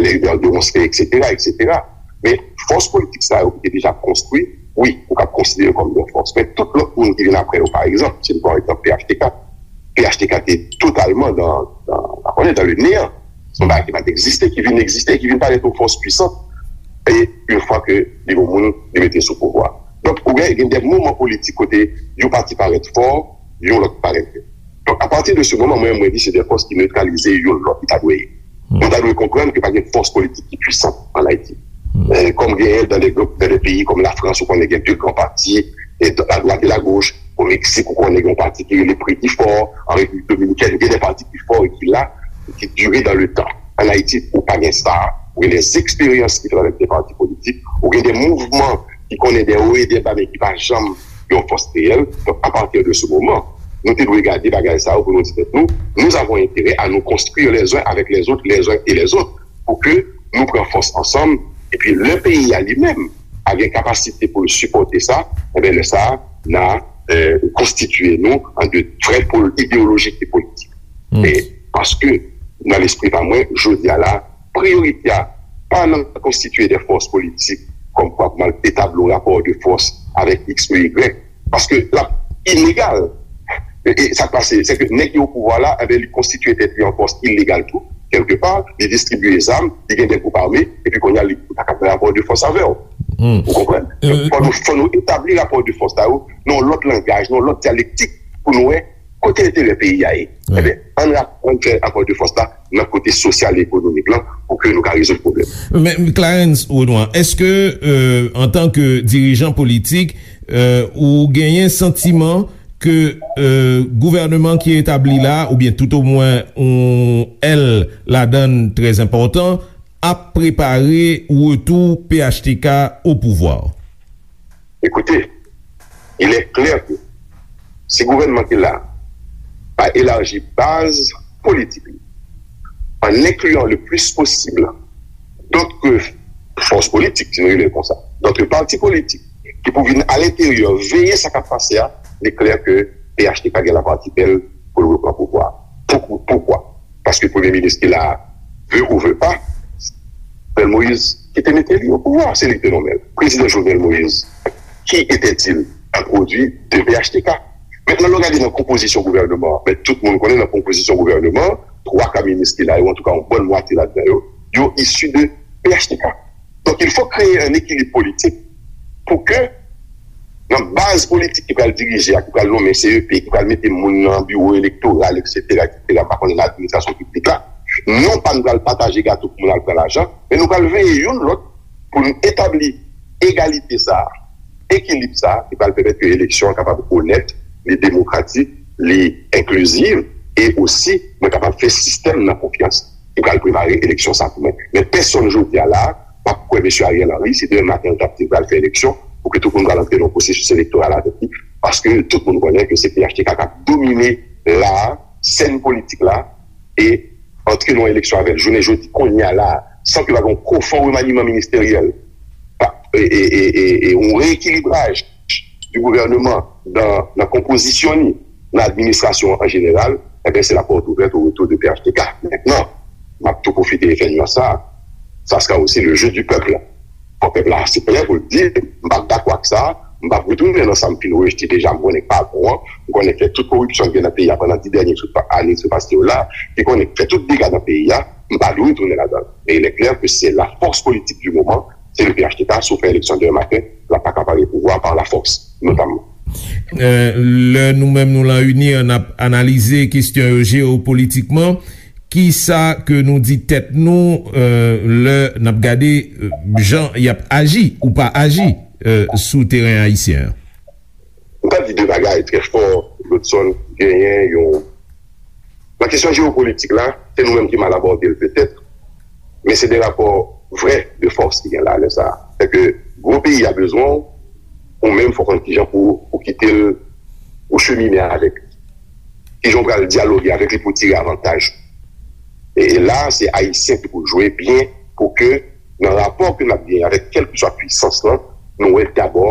lè Hubert Deronceray, etsetera, etsetera. Men fòs politik sa yo ki te deja konstwi, wi, ou kab konsidere yo kòm de fòs. Men tout lòt moun ki vin apre yo, pa egzanp, si n pran egzanp P H T K, P H T K te totalman dan, dan, konnen, dan le neyan. Se yon bagay ki pa t egziste, ki vin egziste, ki vin parèt yon fòs pwisant. E yon fwa ke li gon moun, li mete sou pouvwa. Donk, ou gen, gen de mouvman politik kote yon pati parèt fò, yon lòt parèt fèb. Donk, apati de se moman, mwen, mwen di se de fòs ki netralize yon lòt, li ta dwe ye. Nou ta dwe konprann ke pa gen fòs politik ki pwisan ann Ayiti. Kòm genyen dan de, dan de peyi kòm Lafrans, ou konnen gen de gran pati, e a dwat e a goch, o Meksik, ou konnen gen yon pati ki rele Pre ki fò, an Repiblik Dominikèn, gen de pati ki fò e ki la, e ki dire dan le tan. Ann Ayiti, ou pa gen sa, ou gen de eksperyans ki fèt avèk de pati politik, ou gen de mouvman ki konnen de wo e de ba, men ki pa janm yon fòs reyèl. Donk, apati de se moman, nou te dwe gade bagay sa yo pou nou di tèt nou, nous avons intérêt à nous construire les uns avec les autres, les uns et les autres, pou ke nou pran fòs ansanm, epi lè peyi a li menm a gen kapasite pou l sipòte sa, enben lè sa a, n a konstitye nou an de vrè pòl ideyolojik e politik. E paske nan lespri pa mwen, jodi a la, priyorite a pa nan konstitye de fòs politik kòm kwa pou mal etabli yon rapò de fòs avèk X ou Y, paske l ap inegal. E, e sa k pase, se ke nèg ki o pouvwa la, enben, li konstitye tèt li an fòs ilegal tou, kèlkepa, li distribiye zam, li gen de gwoup ame, epi kounye a, li pa ka fè rapò de fòs avè w. Ou konprann? Fò nou, fò nou etabli rapò de fòs sa yo nan yon lòt langaj, nan yon lòt dyalektik, pou nou wè Kote enterè peyi a ye? Ebyen, ann rapran fè rapò de fòs la nan kote sosyal e ekonomik lan pou ke nou ka rezoud pwoblèm. Men Clarens Renois, èske, euh, antanke dirijan politik, euh, ou genyen santiman ke, euh, gouvènman ki etabli la, oubyen toutomwen yon èl ladan l trè enpòtan, ap prepare retou P H T K o pouvwa? Écoutez, il est clair que si gouvènman ki la pa elaji baz politik li, en incluant le plus possible d'autres forces politiques, si nou rele l konsa, d'autres partis politiques, ki pou vin a lenteryè veye sa k ap pase a, li klè ke P H T K gen laparti bèl pou l repran pouvwa. Pou, poukwa? Paske premye minis ki la, veut ou veut pas, Jovenel Moïse ki te mete li o pouvwa, se li ki te nonmen l. Prezidan Jovenel Moïse, qui était-il? A produit de P H T K. Mentnan, lè w gade nan konpozisyon gouvènman an, men tout moun konnen nan konpozisyon gouvènman an, twa ka minis ki la yo, antouka yon bòn mwatye ladan yo, yo isi de P H T K. Donk, il faut créer un équilibre politique pou ke nan baz politik ki pral dirije a, ki pral nonmen C E P, ki pral mete moun nan biwo elektoral, et cetera, et cetera, m pa konnen nan administrasyon piblik la, non pa n pral pataje gato pou moun al pran lajan, men nou pral veye youn lòt pou n etabli egalite sa a, ekilib sa a, ki pral pèmèt ke eleksyon an kapab onèt, li demokratik, li enkliziv, e osi, mwen kapab fè sistèm nan konfyans ki pral prepare eleksyon sa pou mwen. Men pèsonn jodi a la, p ap kwè mesye Ariel Henry, si demen maten l t ap di l pral fè eleksyon, pou ke tout moun pral antre nan yon pwosesis elektoral avèk li, paske tout moun konnen ke se P H T K k ap domine la, sèn politik la, e antre nan yon eleksyon avè l jounen jodi, kounye a la, san ke pa gen yon pwofon remaniman ministeryèl, pa, e, e, e, e, e yon reekilibraj di gouvènman nan, nan konpozisyon li, nan administrasyon an jeneral, ebyen, se la porte ouverte au retour de P H T K. Mentnan, m ap tou pwofite e fè nyans sa, ça sera aussi le jeu du peuple. Fò pèp la se prè pou l di, m p ap dakò ak sa, m p ap retounen nan sa m fin rejte deja, m konnen k pa bon an, m konnen k fè tout koripsyon ki gen nan peyi a pandan dis dènye sou pa, ane sou pase yo la, ki konnen k fè tout dega nan peyi a, m pa dwe retounen ladan l. Men il est clair que c'est la force politique du moment, se le P H T K, si w fè eleksyon demen maten, l ap pa ka pare pouvwa a par la force, notamman. Euh, lè nou menm nou lan UNIR, n ap analize kesyon yo jewopolitikman, kisa ke nou di tèt nou, euh, lè n ap gade, euh, jan y ap aji ou pa aji, euh, sou teren ayisyen an? M ta di de bagay trè fò, Godson, genyen yon, nan kesyon jewopolitik la, se nou menm ki mal abòde l petèt, men se de rapò vrè de fòs ki gen la lè sa a. Sèke gwo peyi a bezwen w, ou menm fò w konn kijan pou ou kite l, ou chemine avèk li. Kijan w pral dyaloge avèk li pou w tire avantaj. E, e la, se Ayisyen ki pou jwe byen pou ke nan rapò ke n ap genyen avèk kèlkeswa pwisans lan, nou wè dabò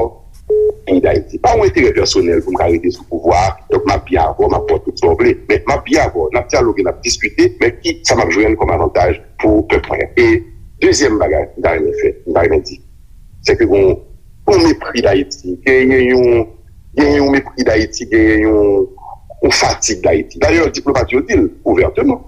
peyi Dayiti. Pa yon enterè pèsonèl pou m ka rete sou pouvwa a, donk m ap byen avè w, m ap ba w tout sa w vle. Men m ap byen avè w, n ap dyaloge, n ap diskite, men ki sa m ap jwenn kòm avantaj pou pèp mwen? E dezyèm bagay m ta renmen fè, m ta renmen di, se ke gon, gon mepri Dayiti, genyen yon, genyen yon mepri Dayiti, genyen yon, yon fatig Dayiti. Dayè, diplomat yo di l ouvèteman.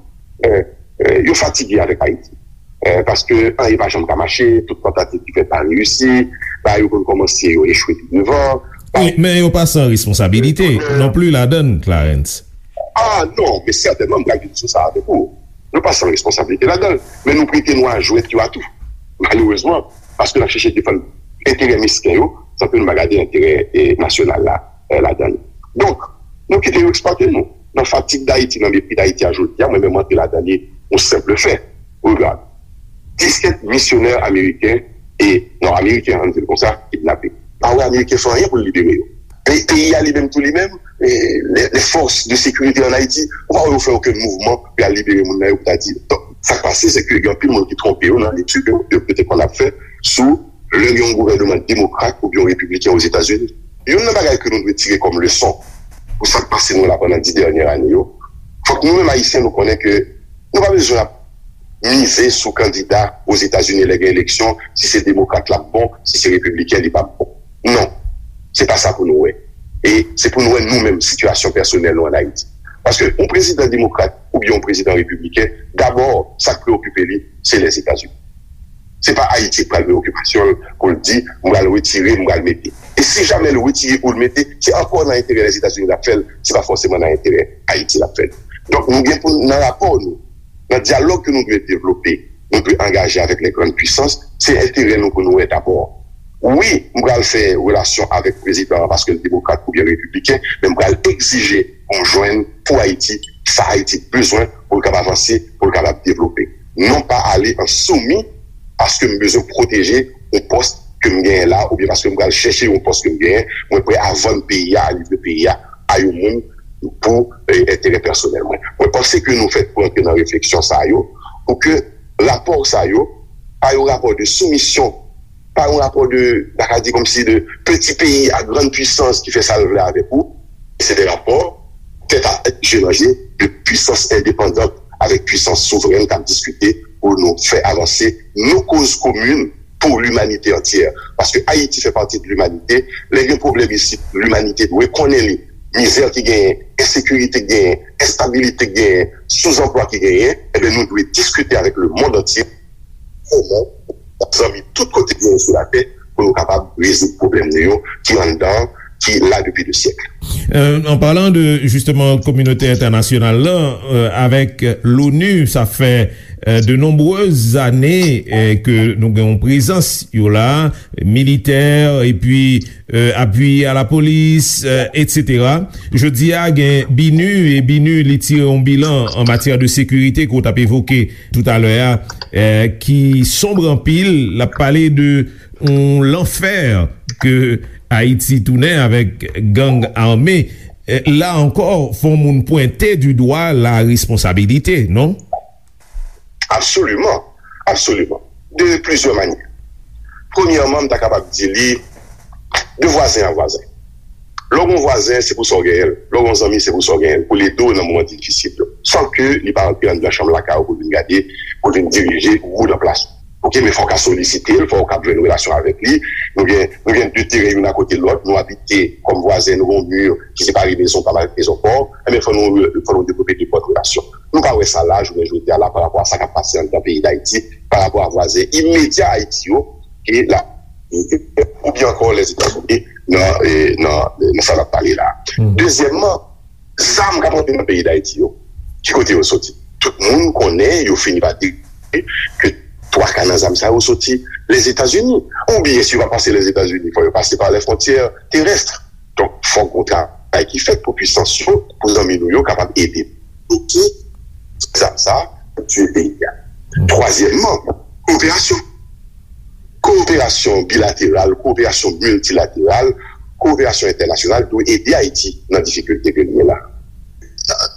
Eh, eh, yo fatige avèk Ayiti. Eh, paske anyen pa janm ka mache, tout tantativ ki fèt pa reyisi, bagay yo konn kòmanse, yo echwe pi devan. Wi, men yo pa san responsabilite non pli ladan l, Clarens. Ah non, men sètènman, m pral vin sou sa avèk ou. Nou pa san responsabilite ladan l, men nou prete nou a jwèt yo a tou. Malerezman, paske n ap chèche defann enterè mesken yo, san ke nou pa gade enterè, eh, nasyonal la, eh, ladan l. Donk, nou kite yo eksplwate nou. Nan fatig Dayiti, nan mepri Dayiti a jodi a, mwen menm m antre ladan li, yon senp fè. Regard, disèt misyonè ameriken, e, non, ameriken, ann di l konsa, kidnape. Pa wè ameriken fè anyen pou l libere yo. Pe-, peyi a li menm tou li menm, e, les, les forces de sécurité en Haïti, ou pa wè yo fè okenn mouvman pou y al libere moun nan yo pou ta di. Donk, sa k pase, se ke gen anpil moun ki twonpe yo nan letid yo, yo, yo te konn ap fè sou lè gen yon gouvènman demokrat oubyen yon repibliken Ozetazini. Youn nan bagay ke nou dwe tire kòm leson pou sa k pase nou la pandan dis dènye ane yo, fòk nou menm Ayisyen nou konnen ke nou pa bezwen ap mize sou kandida Ozetazini lè gen eleksyon, si se demokrat l ap bon, si se repibliken li p ap bon. Non, se pa sa pou nou wè. E se pou nou wè nou menm sitiyasyon pèsonèl nou ann Ayiti. Paske yon prezidan demokrat oubyen yon prezidan repibliken, dabò, sa k preokipe li, se Lèzetazini. Se pa Ayiti k pral preokipasyon l pou l di, "M pral retire, m pral mete." E si jamè l retire ou l mete, se ankò nan enterè Lèzetazini l ap fè l, se pa fòseman nan enterè Ayiti l ap fè l. Donk, nou gen pou, nan rapò nou, nan dyalòg ke nou dwe devlope, nou dwe angaje avèk lè grann pwisans, se enterè nou pou nou wè dabò. Wi, m pral fè relasyon avèk prezidan an paske l demokrat oubyen repibliken, men m pral egzije pou m jwenn pou Ayiti sa Ayiti bezwen pou l kapab avanse, pou l kapab devlope. Non pa ale an soumi paske m bezwen pwoteje yon pòs ke m genyen la oubyen paske m pral chèche yon pòs ke m genyen, mwen prè a vann peyi a, a livre peyi a a yon moun pou eh, enterè pèsonèl mwen. Mwen panse ke nou fèt pou antre nan refleksyon sa yo, pou ke rapò sa yo pa yon rapò de soumisyon, pa yon rapò de, ta ka di kòmsi de peti peyi a grann pwisans ki fè sa l vle avèk ou. Se de rapò tèt a tèt, je nan je, de pwisans endepandan avèk pwisans souvrèn k ap diskite pou nou fè avanse nou koz komin pou limanite antyè. Paske Ayiti fè pati de limanite. Lè gen pwoblèm isit, limanite dwe konnen li. Mizè ki genyen, ensekirite ki genyen, enstabilite ki genyen, souzanplwa ki genyen, ebyen nou dwe diskite avèk lemonn antye, kòman zanmi tout kote ki genyen sou latè, pou nou kapab rezoud pwoblèm nou yo ki anndan, ki la depi de syèk. Euh, en parlant de justement communauté internationale là, euh, avec l'ONU, ça fait euh, de nombreuses années euh, que nous avons présence là, militaire et puis euh, appui à la police, euh, et cetera. Je dis à BINUH et BINUH li tire un bilan en matière de sécurité qu'on a évoqué tout à l'heure, euh, qui sombre en pile, la parlé de yon lanfè ke Ayiti tounen avèk gang ame, la ankò, fò moun pwente di dwa la responsabilite, non? Absoliman, absoliman. De plizyè manyè. Premyèman, m ta kapab di li de vwazen a vwazen. Lè w gen yon vwazen, se pou sa w genyen l. Lè w gen yon zanmi, se pou sa w genyen l. Pou l ede w nan moman difisil yo. San ke li pa antre anndan chanm lakay ou pou l vin gade, pou l vin dirije ou nan plas ou. Ok, men fò w ka solisite l, fò w ka jwenn relasyon avèk li. Nou gen, nou gen de teren youn akote lòt, nou abite kòm vwazen, nou gen yon mi ki separe mezon pa m avèk mezon pa w. Enben, fò nou, fò nou devlope nenpòt relasyon. Nou pa wè sa la, jounen jodi a la, pa rapò a sa k ap pase anndan peyi Dayiti, pa rapò a vwazen imedya Ayiti yo, ke la, oubyen ankò Lèzetazini nan, nan, nan sa n ap pale la. Dezyèmman, zam k ap antre nan peyi Dayiti yo, ki kote yo soti? Tout moun konnen, yo fini pa deklare ke twa ka nan zam sa yo soti Lèzetazini. Oubyen si yo pa pase Lèzetazini, fò yo pase pa lè fwontyè terès. Donk, fòk gon travay ki fèt pou pwisans yo, pou zanmi nou yo kapab ede bloke zam sa pou tiye peyi a. Twazyèmman, kowoperasyon. Kowoperasyon bilateral, kowoperasyon miltilateral, kowoperasyon entènasyonal dwe ede Ayiti nan difikilte ke li ye la.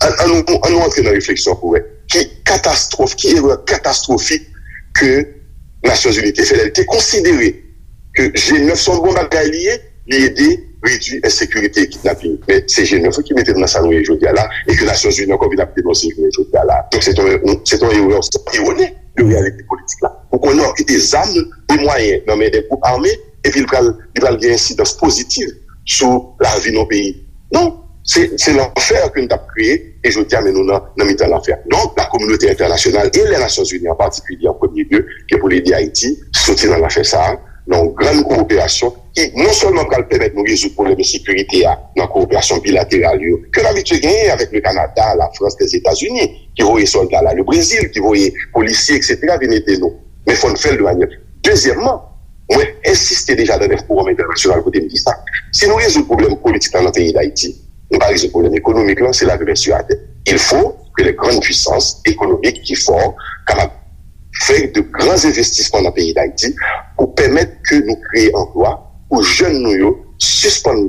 An nou antre nan refleksyon pou wè ki katastwòf, ki erè katastwofik ke Nasyonzini te fè lè li te konsidere ke G nèf se yon bon bagay li ye, li ede redui ensekirite e kidnaping. Men se G nèf wi ki mete nou nan sa nou ye jodi a la, e ke Nasyonzini ankò vin ap denonse jounen jodi a la. Donk se yon, se yon erè erone de reyalite politik la. Ou konnen w ap kite zam e mwayen nan men de gwoup ame, epi li pral, li pral gen ensidans pozitiv sou lavi nan peyi. Non, se, se lanfè ke n t ap kreye, e jodi a, men nou nan, nan mitan lanfè. Donk, la kominote entènasyonal e lè Nasyonzini an patikilye an premye lye, ke pou l ede Ayiti soti nan lanfè sa a, nan yon grann kowoperasyon ki non sèlman pral pèmèt nou rezoud pwoblèm ensekirite a nan kowoperasyon bilateral yo ke n abitye genyen avèk le Kanada, la Frans, Lèzetazini, ki voye sòlda la, le Brezil, ki voye polisye, etsetera, vin ede nou. Men fò n fè l de manyè. Dezyèmman, mwen ensiste deja nan de fowòm entènasyonal kote m di sa. Si nou rezoud pwoblèm politik la nan peyi Dayiti, nou pa rezoud pwoblèm ekonomik lan, se la jeunesse yo atè. Il faut que les grandes puissances économiques ki fò kapab fè de gran envestisman nan peyi Dayiti pou pèmèt ke nou kreye anplwa pou jèn nou yo sispann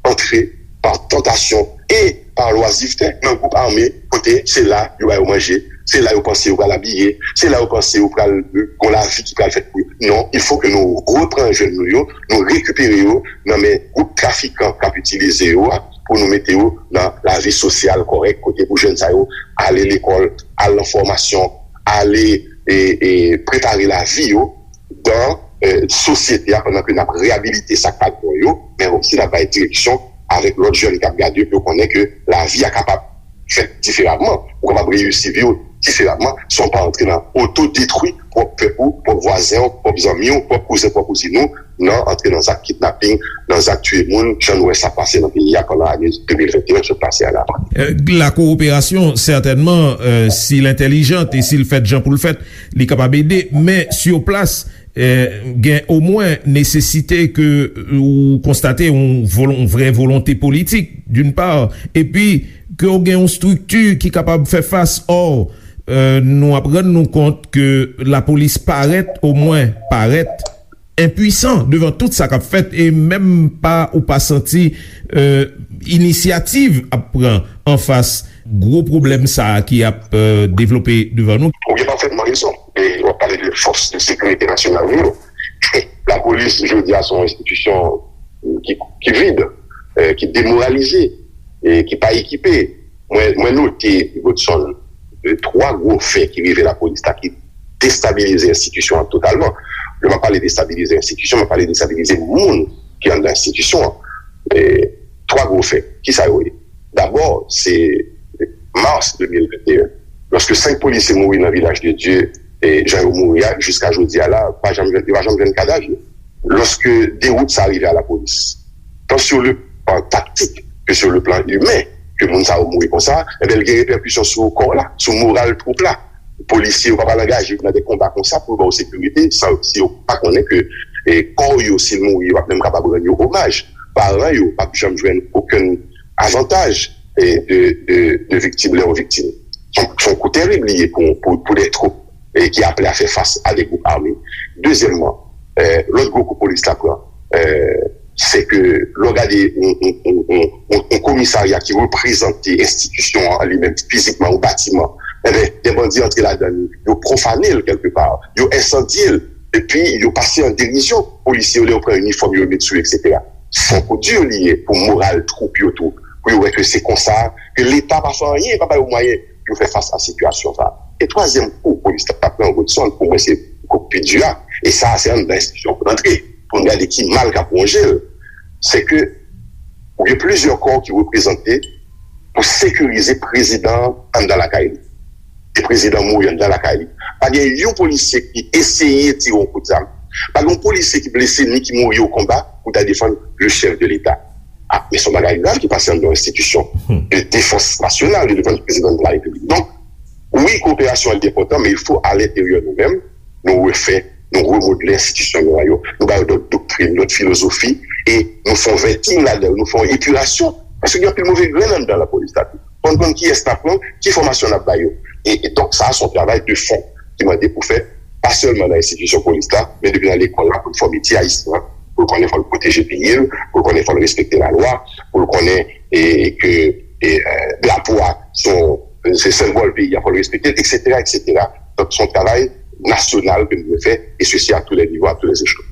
antre pa tantasyon e pa lwazivte nan gwoup ame kote se la yo ba yo manje, se la yo panse yo pral abiye, se la yo panse yo pral gon lavi ki pral fèt pou yo. Non, il faut que nou repran jèn nou yo, nou rekipere yo nan men gwoup trafikan k ap itilize yo a pou nou mete yo nan lavi sosyal kòrèk kote pou jèn sa yo ale lekòl, al nan fòmasyon, ale e, e prepare lavi yo dan sosyete a pandan ke n ap reyabilite sa k pa t bon yo, men osi n ap bay direksyon avèk lòt jèn k ap gade yo pou yo konnen ke lavi a kapab fèt diferaman. Ou kapab reyisi vi w diferaman san w pa antre nan otodetwi pwòp pèp ou, pwòp vwazen w, pwòp zanmi w, pwòp kouzen, pwòp kouzin ou, nan antre nan zak kidnaping, nan zak tiye moun, jan nou wè sa pase nan peyi a pandan ane de mil venteyen k sot pase a la. Euh, la coopération, certainement, euh, si l entèlijant e si l fèt jan pou l fèt, li kapab ede, men sur place, euh, gen omwen nesesite ke ou konstate yon, volon, yon vrè volonte politik, d'une part, epi ke w gen yon strikti ki kapab fè fas. Or, euh, nou ap rann nou kont ke lapolis parèt, omwen parèt, enpwisan devan tout sa k ap fèt e menm pa ou pa santi, euh, inisyativ ap pran anfas gwo pwoblèm sa a ki ap, euh, devlope devan nou. Ou gen pafètman rezon. E w ap pale de fòs de sekirite nasyonal nou yo. Lapolis, jodi a, se yon enstitisyon ki, ki vid, eh, ki demoralize, e ki pa ekipe. Mwen, mwen note, Godson, eh, twa gwo fè ki rive lapolis la ki destabilize enstitisyon an totalman. Lè m ap pale destabilize enstitisyon, m ap pale destabilize moun ki anndan enstitisyon an. Eh, twa gwo fè. Kisa yo ye? Dabò, se mas de mil venteyen, lòske senk polisye mouri nan Vilaj de Dye, e jan yo mouri a, jiska jodi a la, pa janm jwenn, yo pa janm jwenn kadav yo. Lòske dewout sa rive a lapolis, tan sur le plan taktik ke sur le plan imen, ke moun sa yo mouri konsa, enben, l gen repèkisyon sou kò la, sou moral twoup la. Polisye yo pa pral angaje nan de konba konsa pou yo ba yo sekirite, san, si yo pa konnen ke, e, kò yo, si l mouri, yo p ap menm kapab rann yo omaj. Paran yo p ap janm jwenn okenn avantaj, e, de, de, de viktim, lè yo viktim. Se yon, se yon kou tèrib li ye pou, pou, pou de twoup, e, ki aple a fè fas a de gwoup ame. Dezyèmman, e, lòt gwo kou polis la pran, e, se ke lè w gade yon, yon, yon, yon, yon, yon komisarya ki reprezante enstitisyon an li menm fizikman, yon batiman, enben, de bandi antre ladan li, yo pwofane l kèlkepa, yo ensandye l, epi yo pase an derizyon polisye yo lè yo pran inifòm yo, yo met sou yo, etsetera. Se yon kou di li ye pou moral twoup yo tou, pou yo wè ke se konsa, ke Leta pa fè anyen, pa ba yo mwayen pou yo fè fas a sitiyasyon sa a. E twazyèm kou polis la pran, Godson, pou mwen se kou k pi di a, e sa a se anndan enstitisyon pou l antre, pou n gade ki mal k ap wonje l, se ke ou gen plizyè kò ki reprezante pou sekirize prezidan an anndan lakay li. E prezidan mouri anndan lakay li. Pa gen yon polisye ki eseye tire yon kout zam. Pa gen yon polisye ki blese ni ki mouri o konba pou ta defann le chèf de Leta. A, men se yon bagay grav ki pase anndan yon enstitisyon de defans nasyonal, de defans prezidan de la Repiblik. Donk, wi, koperasyon an li enpòtan, men il faut à l'intérieur nou menm, nou refè, nou remodle enstitisyon nou an yo. Nou ba yo dòt doktrin, dòt filozofi, e nou fè yon vetting ladan yo, nou fè yon epirasyon. Paske gen anpil move grenn anndan lapolis la tou. Fò n konn kiyès n ap pran, ki fòmasyon n ap ba yo. E, e donk, sa a se yon travay de fon ki mande pou fèt, pa sèlman nan enstitisyon polis la, men depi nan lekòl la, pou l fòme ti Ayisyen an, pou l konnen fò l pwoteje peyi l, pou l konnen fò l respekte lalwa, pou l konnen, e, ke, e, e, drapo a se yon, se senbòl peyi a, fò l respekte l, etsetera, etsetera. Donk, se yon travay nasyonal ke nou dwe fè, e sesi a tou lè nivo, a tou lè echelon.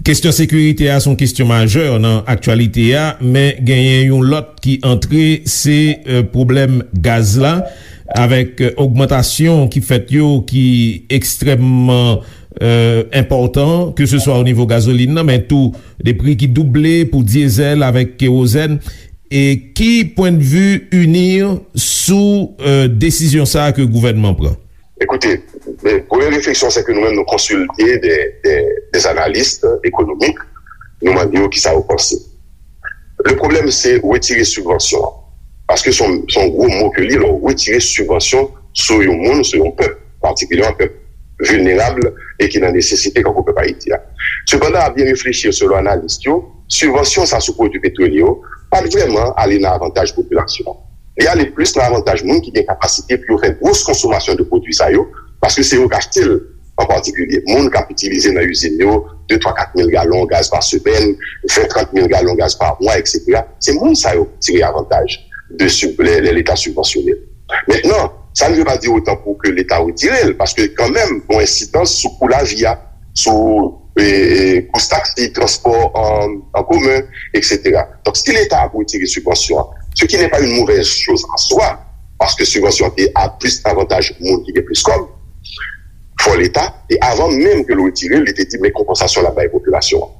Kesyon sekirite a se yon kesyon majè nan aktyalite a, men genyen yon lòt ki antre, se, euh, pwoblèm gaz la, avèk, euh, ogmantasyon ki fèt yo ki ekstrèmman, euh, enpòtan, ke se swa o nivo gazolin nan, men tou de pri ki double pou dyezèl avèk kewozèn. E ki pwendvi UNIR sou, euh, desizyon sa a ke gouvènman pran? Ekoute, eh, premye refleksyon, se ke nou menm nou konsilte de, de, de analis ekonomik, nou mande yo kisa yo panse. Le pwoblèm, se retire sibvansyon an. Paske se yon, se yon gwo mo ke li, lè w retire sibvansyon sou yon moun, sou yon pèp, patikilyèman pèp vilnerab e ki nan nesesite, kankou pèp Ayiti a. Sepandan, a byen reflechi, selon analis yo, sibvansyon sa sou pwodui petwolye yo pa t vrèman ale nan avantaj popilasyon an. Li ale plis nan avantaj moun ki gen kapasite pou yo fè gwos konsomasyon de pwodui sa yo, paske se yo k achte l an patikilye. Moun k ap itilize nan izin yo de, twa, kat mil galon gaz pa semèn, ven, trant mil galon gaz pa mwa, etsetera. Se moun sa yo k tire avantaj de sib-, lè, lè Leta sibvansyone l. Mentnan, sa n vle pa di otan pou ke Leta retire l, paske kanmenm, gen yon ensidans sou kou lavi a, sou, e, e, kous taksi, transpò an, an komen, etsetera. Donk, si Leta ap retire sibvansyon an, ce qui n'est pas une mauvaise chose en soi, paske sibvansyon an te a plis avantaj moun ki gen plis kòb, fò Leta, e avan menm ke l retire l, li te di, men konpansasyon l ap bay popilasyon an.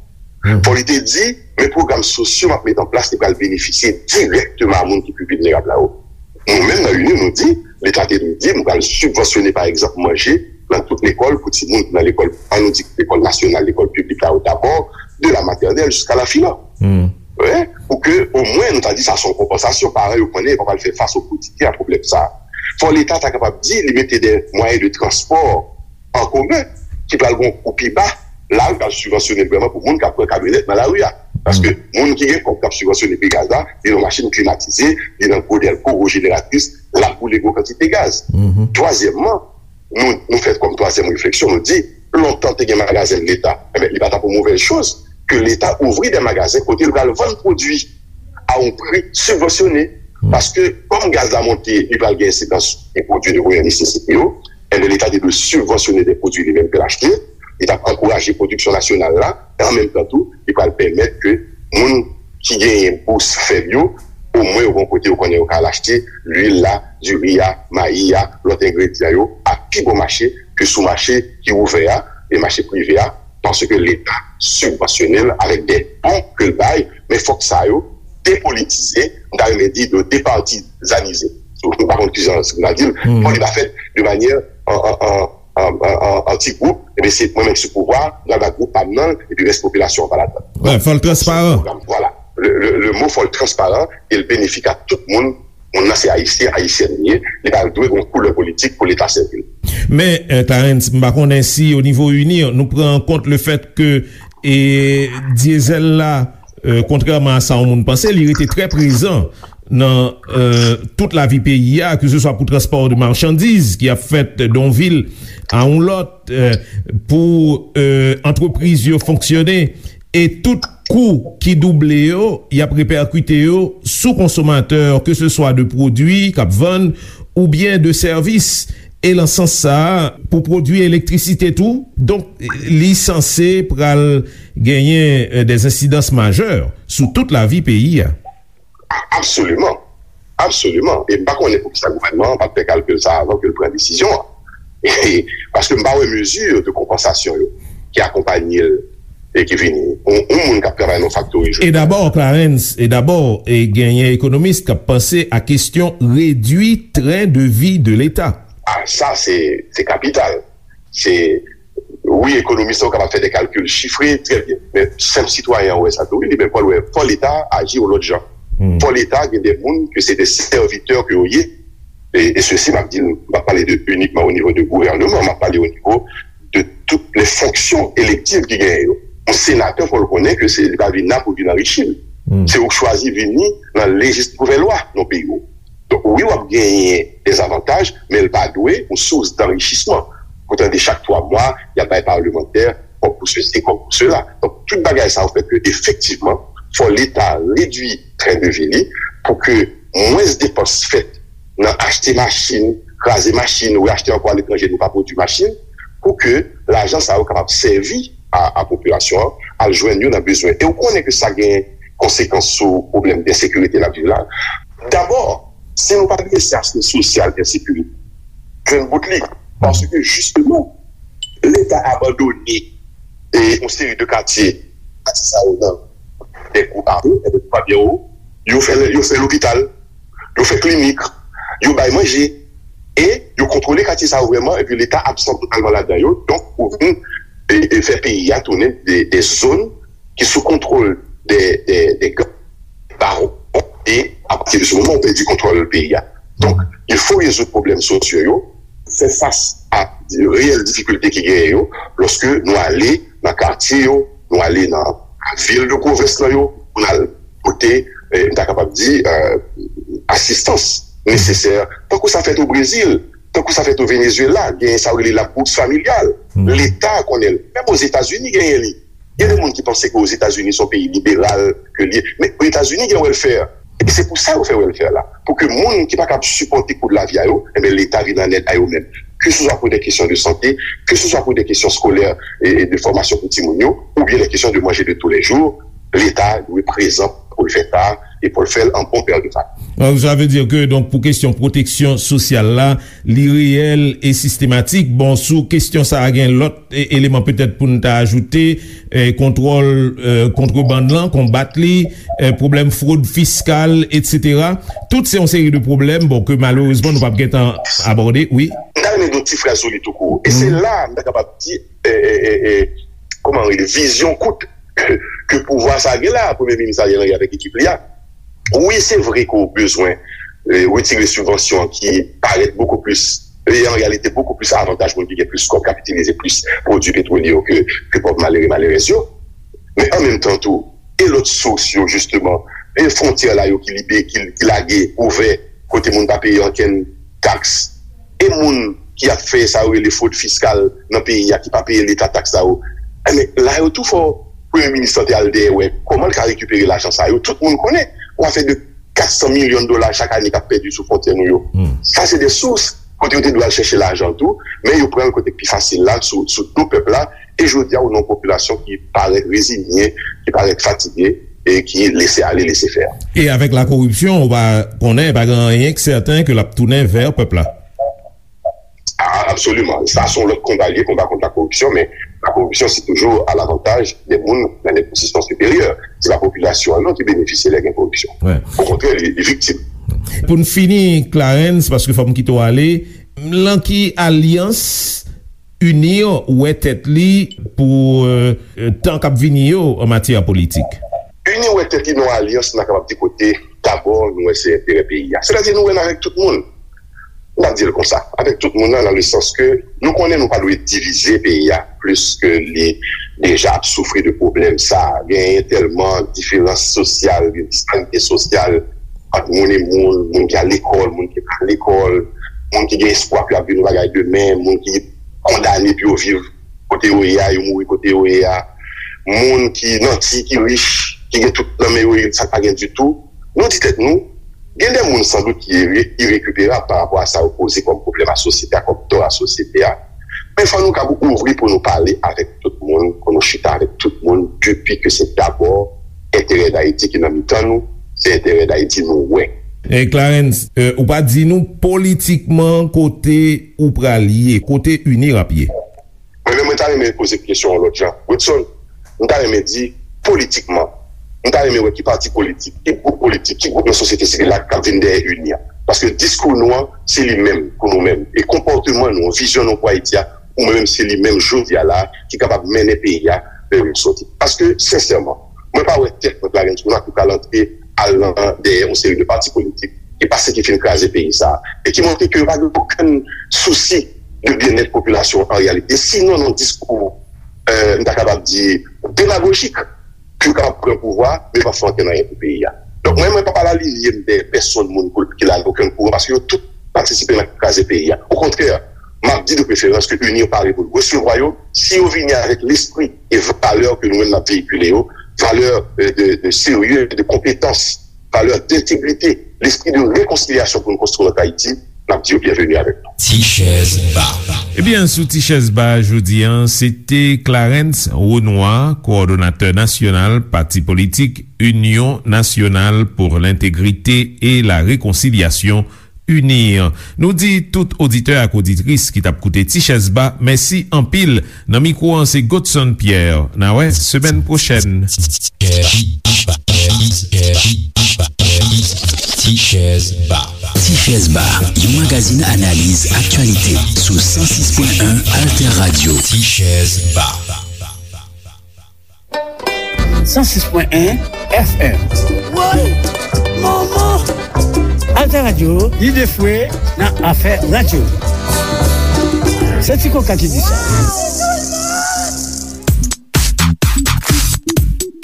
Fò li te di, men pwogram sosyo m ap met an plas, li pral benefisye dirèkteman a moun ki pi vilnerab la yo. Nou menm nan UNIR, nou di, Leta te dwe di, nou pral sibvansyone, pa egzanp, manje nan tout lekòl pou timoun ki nan lekòl, ann nou di lekòl nasyonal, lekòl piblik la yo dabò, de la maternelle jusqu'à la filan. Wi, pou ke omwen nou ta di sa se yon konpansasyon, paran yo konnen yo pa pral fè fas o kotidyen a pwoblèm sa a. Fò Leta ta kapab di li mete de mwayen de transpò an komen ki pral gen yon kou pi ba, la yo pral sibvansyone l vrèman pou moun k ap pran kamyonèt nan lari a. Paske moun ki gen kòb k ap sibvansyone pri gaz la, li nan machin klimatize, li nan gwo dèlko, gwo jeneratris, l ap boule gwo kantite gaz. Twazyèmman, nou, nou fè kòm twazyèm refleksyon, nou di, lontan te gen magazen Leta, enben, li pa t ap yon movèz choz ke Leta ouvri de magazen kote l pral vann pwodui a yon pri sibvansyone. Paske, kòm gaz la monte, li pral gen ensidans sou pwodui de premyè nesesite yo, enben, Leta te dwe sibvansyone de pwodui li menm ke l achte, li t ap ankouraje pwodiksyon nasyonal la, e an menm tan tou, li pral pèmèt ke moun ki genyen bous fèb yo, omwen yo gen yon kote yo konnen yo ka al achte lwil la, diri a, mayi a, lòt engredyan yo a pi bon mache ke sou mache ki ouvè a, e mache prive a, paske Leta sibvansyone l avèk de bon ke l bay, men fòk sa yo depolitize, m ta renmen di de departizanize. M pa konn kijan si m ta di l, fò li pa fèt de manyè an, an, an, an, an, an, an ti gwoup, ebyen se mwen menm ki sou pouvwa, m pral ba gwoup pa m nan, epi rès popilasyon an pa ladan. Wi, fò l transparan. Vwala. Le, le, le mo fò l transparan e l benefik a tout moun. Moun nan se ayisyen, ayisyèn li ye, li pral dwe gen yon koulè politik pou Leta sèvi l. Men, eh, Clarens, m pa konnen si o nivo UNIR, nou pran an kont le fèt ke, e, dyezèl la, eh, kontrèman a sa yon moun panse, li rete trè prezan nan, eh, tout lavi peyi a, ke se swa pou transpò de machandiz ki ap fèt de yon vil a yon lòt, eh, pou, eh, antrepriz yo fonksyone, e tout kou ki double yo, y ap repèkite yo sou konsomatè, ke se swa de pwodui k ap vann oubyen de sèvis. E nan sans sa a, pou pwodui elektrisite tou, donk, li sanse pral genyen, eh, de ensidans majè sou tout lavi peyi a. A-, absoliman. Absoliman. E m pa konnen poukisa gouvènman an pa t fè kalkil sa a avan ke l pran desizyon an. Paske m pa wè mezi de konpansasyon yo ki akonpanye l e ki vini. Yon, yon moun k ap travay nan yon faktori jodi a. E dabò, Clarens, e dabò, e genyen ekonomis k ap panse a kesyon redui tren de vi de Leta. A, sa, se, se kapital. Se, wi, ekonomis la, ou kapab fè de kalkil chifre, trè byen. Men, senp sitwayen an wè sa tou, wi, li menm, fò l wè, fò Leta aji yon lòt jan. Fò Leta gen de moun ke se de sèvitè ke yo ye. E, e sesi, m ap di l, m ap pale de inikman o nivo de gouvènman, m ap pale o nivo de tout lè fonksyon elektiv ki genyen yo. Yon senatè, fò l konnen ke se, li pa vin la pou vin anrichi l. Se ou k chwazi vini nan lejis nouvèl lwa nan peyi w. Donk, wi, w ap genyen de zavantaj, men l pa dwe yon sous danchisman. Pou tande chak twa mwa, y ap bay palmantè kòb pou sesi, kòb pou sela. Donk, tout bagay sa yo fè ke, efektivman, fò Leta redui tren de vi li pou ke mwens depans fèt nan achte machin, kraze machin, ou achte ankò aletranje, nou pa pwodui machin, pou ke lajan sa yo kapab sèvi a, a popilasyon an, al jwenn yo nan bezwen. E ou konnen ke sa gen konsekans sou pwoblèm de ensekirite n ap viv la. Dabò, si nou pa adrese aspè sosyal ensekirite, jwenn bout li. Paske, jisteman, Leta abandone e yon seri de katye, katye sa yo nan de gwoup ame, e de gwoup ame yo, yo fè, yo fè lopital, yo fè klinik, yo bay manje, e yo kontwole katye sa yo vrèman, epi Leta absan totalman ladan yo. Donk, ou vin, e, e fè peyi a tounen de, de zòn ki sou kontwòl de, de, de gang, bawon, e apati de se moman, ou pèdi kontwòl peyi a. Donk, il faut rezoud pwoblèm sosyo yo, fè fas a reyèl difikilte ki genyen yo, lòske nou ale nan katye yo, nou ale nan vil de pwovens lan yo, pou n al pote, eh, m ta kapab di, eh, asistans nesesè, tankou sa fèt o Brezil, tankou sa fèt o Venezuela, genyen sa yo rele la bourse familiale. Leta konnen l. Menm Ozetazini genyen li. Gen de moun ki panse ke Ozetazini se yon peyi liberal ke l ye. Men Ozetazini gen welfare. E se pou sa yo fè welfare la. Pou ke moun ki pa kab sipòte kou de lavi a yo, enben, Leta vin an èd a yo menm. Ke se swa pou de kesyon de sante, ke se swa pou de kesyon skolè e, e de fòmasyon pou timoun yo, oubyen de kesyon de manje de tou lè jou, Leta dwe prezan pou l fè sa, e pou l fè l an bon pè de familye. Donk, sa vle di ke, donk, pou kesyon pwoteksyon sosyal la, li reyèl e sistematik. Bon, sou kesyon sa a, gen lòt e-, eleman petèt pou n ta ajoute, e, kontwòl, e, kontrebann lan, konbat li, e, pwoblèm fwod fiskal, etsetera. Tout se yon seri de pwoblèm, bon, ke malerezman nou p ap gentan abòde, wi. M ta renmen di yon ti fraz sou li tou kou. E se la, m ta kapab di, e, e, e, e, kòman rele, vizyon kout ke pouvwa sa gen la, Premye Minis Ariel Henry avèk ekip li a. Wi, se vre ke w bezwen, e, retire sibvansyon an ki parèt bokou plis, e, an reyalite, bokou plis avantaj moun ki gen plis kòb k ap itilize plis pwodui petwolye yo ke, ke pòv malere, malerèz yo. Men an menm tan tou, e lòt sous yo, jisteman, e fwontyè la yo ki libe, ki, ki lage, ouvè, kote moun pa peye ankenn taks, e moun ki ap fè sa yo rele fwod fiskal nan peyi a, ki pa peye leta taks sa yo. Enben, la yo tou fò Premye Minis lan te al dèyè wè kòman l ka rekipere lajan sa yo. Tout moun konnen, yon afè de kat san milyon dola chak ane k ap pèdi sou fwontyè nou yo. Sa se de sous kote yo te dwe al chèche lajan tou, men yo pran l kote k pi fasil la, sou, sou do pèp la, e jodi a, ou nan yon popilasyon ki parèt reziye, ki parèt fatige, e ki lese ale, lese fè. E avèk la koripsyon, ou pa konnen, pa gen anyen k sèten ke l ap tounen vè pèp la. A, absoliman. Sa se yon lòt konba li ye, konba kont la koripsyon, men la koripsyon se toujou a lavantaj de moun nan de pozisyon siperyè. Se pa popilasyon an non ki benefisye lè gen koripsyon. Okontrè, li, li viktim. Pou n fini, Clarens, paske fò m kite w ale, lan ki alyans UNIR wè tèt li pou, e, tan k ap vini yo an matyè politik? UNIR wè tèt li nan yon alyans, n a kapab di, kote dabò nou wè se enterè peyi a. Sètadi nou wè n avèk tout moun. M ap di l konsa, avèk tout moun nan, nan le sans ke nou konnen nou pa dwe divize peyi a plis ke li deja ap soufri de pwoblèm sa. Genyen tèlman diferans sosyal, gen disparite sosyal ant moun e moun, moun ki al lekòl, moun ki pa al lekòl, moun ki gen espwa pou y ap vin yon bagay demen, moun ki kondane pou yo viv kote yo ye a, yo mouri kote yo ye a, moun ki nanti, ki rich, ki gen tout nan men yo, e sa k pa gen ditou. Nou di tèt nou, gen de moun sandout ki ire-, irekiperab pa rapò a sa yo poze kòm pwoblèm a sosyete a, kòm tò a sosyete a. Men fò nou kab ouvri pou nou pale avèk tout moun, pou nou chita avèk tout moun, depi ke se dabò enterè Dayiti ki nan mitan nou, se enterè Dayiti nou wè. E Clarens, e, ou pa di nou politikman kote ou pral ye, kote UNIR ap ye? Mwen menm, mwen ta renmen poze kesyon yon lòt jan. Woodson, m ta renmen di, politikman, m ta renmen wè ki pati politik, ki gwoup politik, ki gwoup nan sosyete sivil la k ap vin dèyè UNIR. Paske diskou nou an, se li menm pou nou menm. E konpòteman nou, vizyon nou pou Ayiti a, pou mwen menm, se li menm jodi a la, ki kapab mennen peyi a vè yon sòti. Paske, sensèman, mwen pa wè tèt mwen Clarens Renois ki pral antre al nan dèyè yon seri de pati politik ki pa se ki fin kraze peyi sa a, e ki montre ke yo pa gen okenn sousi de byennèt popilasyon an reyalite. Sinon, nan diskou, e, m ta kapab di, demagojik, ke yo kapab pran pouvwa, men yo p ap fè okenn anyen pou peyi a. Donk, mwen, mwen p ap al alinye m dèyè pèsonn moun pou, ki la nan okenn kouran, paske yo tout patisipe nan kraze peyi a. Okontrè, m ap di de preferans ke UNIR pare pou l resevwa yo, si yo vini avèk lespri e valè ke nou menm n ap veyikile yo, valè, e, de, de serye, de konpetans, valè dentegrite, lespri de rekonsilyasyon pou nou konstwi lòt Ayiti, n ap di yo byenveni avèk nou. Ti chèz ba. Ebyen, sou Ti chèz ba jodi an, se te Clarens Renois, kowòdonatè nasyonal pati politik Union Nationale pour l'Intégrité et la Réconciliation, UNIR. Nou di tout oditè ak oditris ki t ap koute Ti chèz ba, mèsi anpil. Nan mikwo an, se Godson Pierre. N a wè semèn pwochèn. Ti chèz ba. Ti chèz ba, yon magazin analiz aktyalite sou san sis pwen en Alter Radio. Ti chèz ba. San sis pwen en F M. Woy! Manman! Alter Radio, lide fwe nan afè radyo. Se Ti Koka ki di sa.